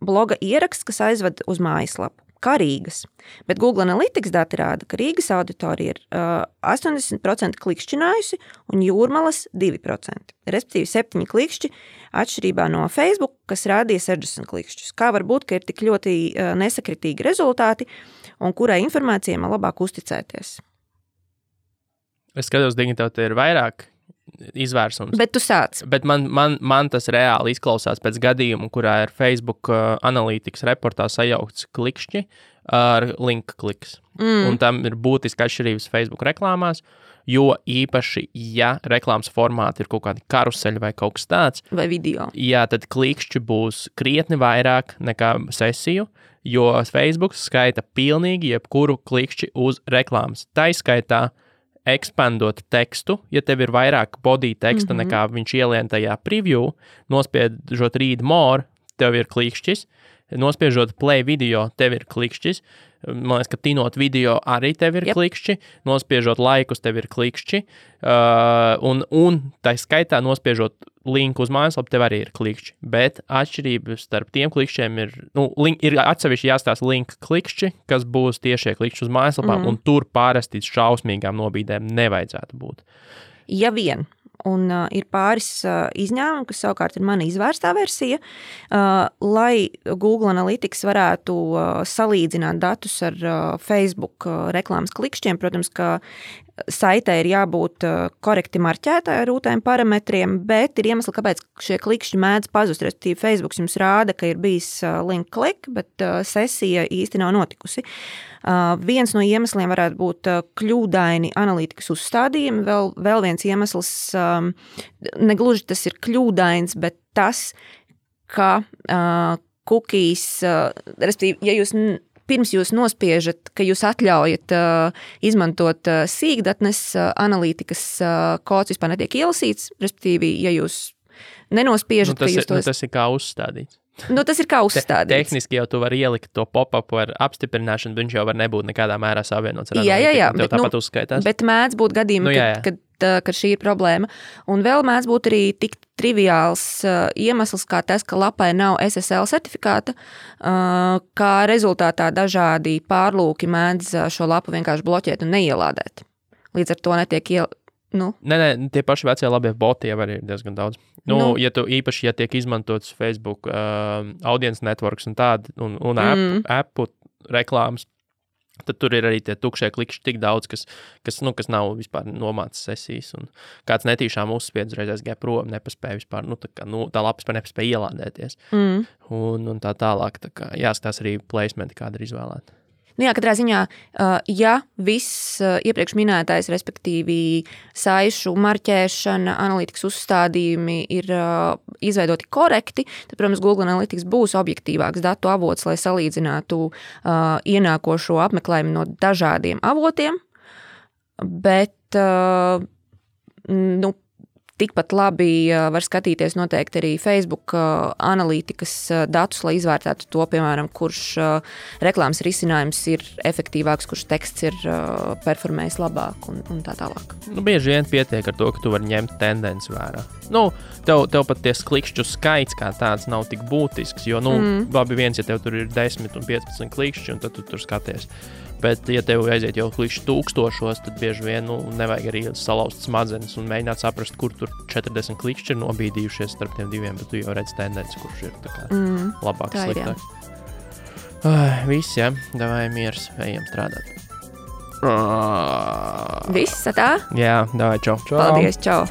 bloga ieraksts, kas aizved uz mājaslapu, kā Rīgas. Bet Google Analytics dati rāda, ka Rīgas auditorija ir 80% klikšķinājusi un Jūrmalas 2%. Respektīvi 7 klikšķi atšķirībā no Facebook, kas rādīja 60 klikšķus. Kā var būt, ka ir tik ļoti nesakritīgi rezultāti un kurai informācijai man labāk uzticēties? Es skatos, dignitāte ir vairāk izvērsums. Bet tu sāc. Bet man tas reāli izklausās pēc gadījuma, kurā ir Facebook analītikas reportā sajaukts klikšķi ar link kliks. Un tam ir būtiski atšķirības Facebook reklāmās, jo īpaši, ja reklāmas formāti ir kaut kādi karuseļi vai kaut kas tāds. Vai video. Jā, tad klikšķi būs krietni vairāk nekā sesiju, jo Facebook skaita pilnīgi jebkuru klikšķi uz reklāmas. Tā izskaitā ekspandot tekstu, ja tev ir vairāk body teksta nekā viņš ielien tajā preview, nospiežot read more, tev ir klikšķis, nospiežot play video, tev ir klikšķis, man liekas, ka tinot video arī tev ir klikšķi, nospiežot laikus tev ir klikšķi, un tā skaitā nospiežot linku uz mājaslapu tev arī ir klikšķi, bet atšķirības starp tiem klikšķiem ir atsevišķi jāstāsta link klikšķi, kas būs tiešie klikšķi uz mājaslapām, un tur pārasti šausmīgām nobīdēm nevajadzētu būt. Ja vien. Un ir pāris izņēmumi, kas savukārt ir mana izvērstā versija, lai Google Analytics varētu salīdzināt datus ar Facebook reklāmas klikšķiem. Protams, ka saitē ir jābūt korekti marķētai ar rūtēm parametriem, bet ir iemesli, kāpēc šie klikšķi mēdz pazust. Respektīvi, Facebook jums rāda, ka ir bijis link klik, bet sesija īsti nav notikusi. Viens no iemesliem varētu būt kļūdaini analītikas uzstādījumi. Vēl viens iemesls, negluži tas ir kļūdains, bet tas, ka cookies, respektīvi, ja jūs pirms jūs nospiežat, ka jūs atļaujat izmantot sīkdatnes analītikas kods vispār netiek ielasīts, respektīvi, ja jūs nenospiežat, ka jūs tos... Tas ir kā uzstādīts. Tas ir kā uzstādīts. Tehniski jau tu vari ielikt to pop-up ar apstiprināšanu, viņš jau var nebūt nekādā mērā savienots ar analītiku. Jā, tev tāpat uzskaitās. Bet mēdz būt gadījumi, kad šī ir problēma. Un vēl mēdz būt arī tik triviāls iemesls, kā tas, ka lapai nav SSL certifikāta, kā rezultātā dažādi pārlūki mēdz šo lapu vienkārši bloķēt un neielādēt. Līdz ar to netiek Nē, tie paši vecie labie boti jau arī ir diezgan daudz. Īpaši, ja tiek izmantots Facebook audience networks un tādi, un appu reklāmas, tad tur ir arī tie tukšie klikšķi tik daudz, kas nav vispār nomācis sesijas, un kāds netīšām uzspiedz reiz aizgāja prom, nepaspēja vispār, tā lapa vispār nepaspēja ielādēties. Un tā tālāk, jāskatās arī placementi, kāda ir izvēlēta. Katrā ziņā, ja viss iepriekš minētais, respektīvi saišu marķēšana, analītikas uzstādījumi ir izveidoti korekti, tad, protams, Google Analytics būs objektīvāks datu avots, lai salīdzinātu ienākošo apmeklējumu no dažādiem avotiem, bet, tikpat labi var skatīties noteikti arī Facebook analītikas datus, lai izvērtētu to, piemēram, kurš reklāmas risinājums ir efektīvāks, kurš teksts ir performējis labāk un tā tālāk. Bieži vien pietiek ar to, ka tu vari ņemt tendenci vērā. Tev pat ties klikšķu skaits kā tāds nav tik būtisks, jo, labi viens, ja tev tur ir 10 un 15 klikšķi, un tad tu tur skaties. Bet, ja tev aiziet jau klikšķi 1000, tad bieži vien nevajag arī salauzt smadzenes un mēģināt saprast, kur tur 40 klikšķi ir nobīdījušies starp tiem diviem, bet tu jau redz tendenci, kurš ir tā kā labāks, sliktāks. Viss, jā, davai miers, ejam strādāt. Viss, tā? Jā, davai, čau. Paldies, čau.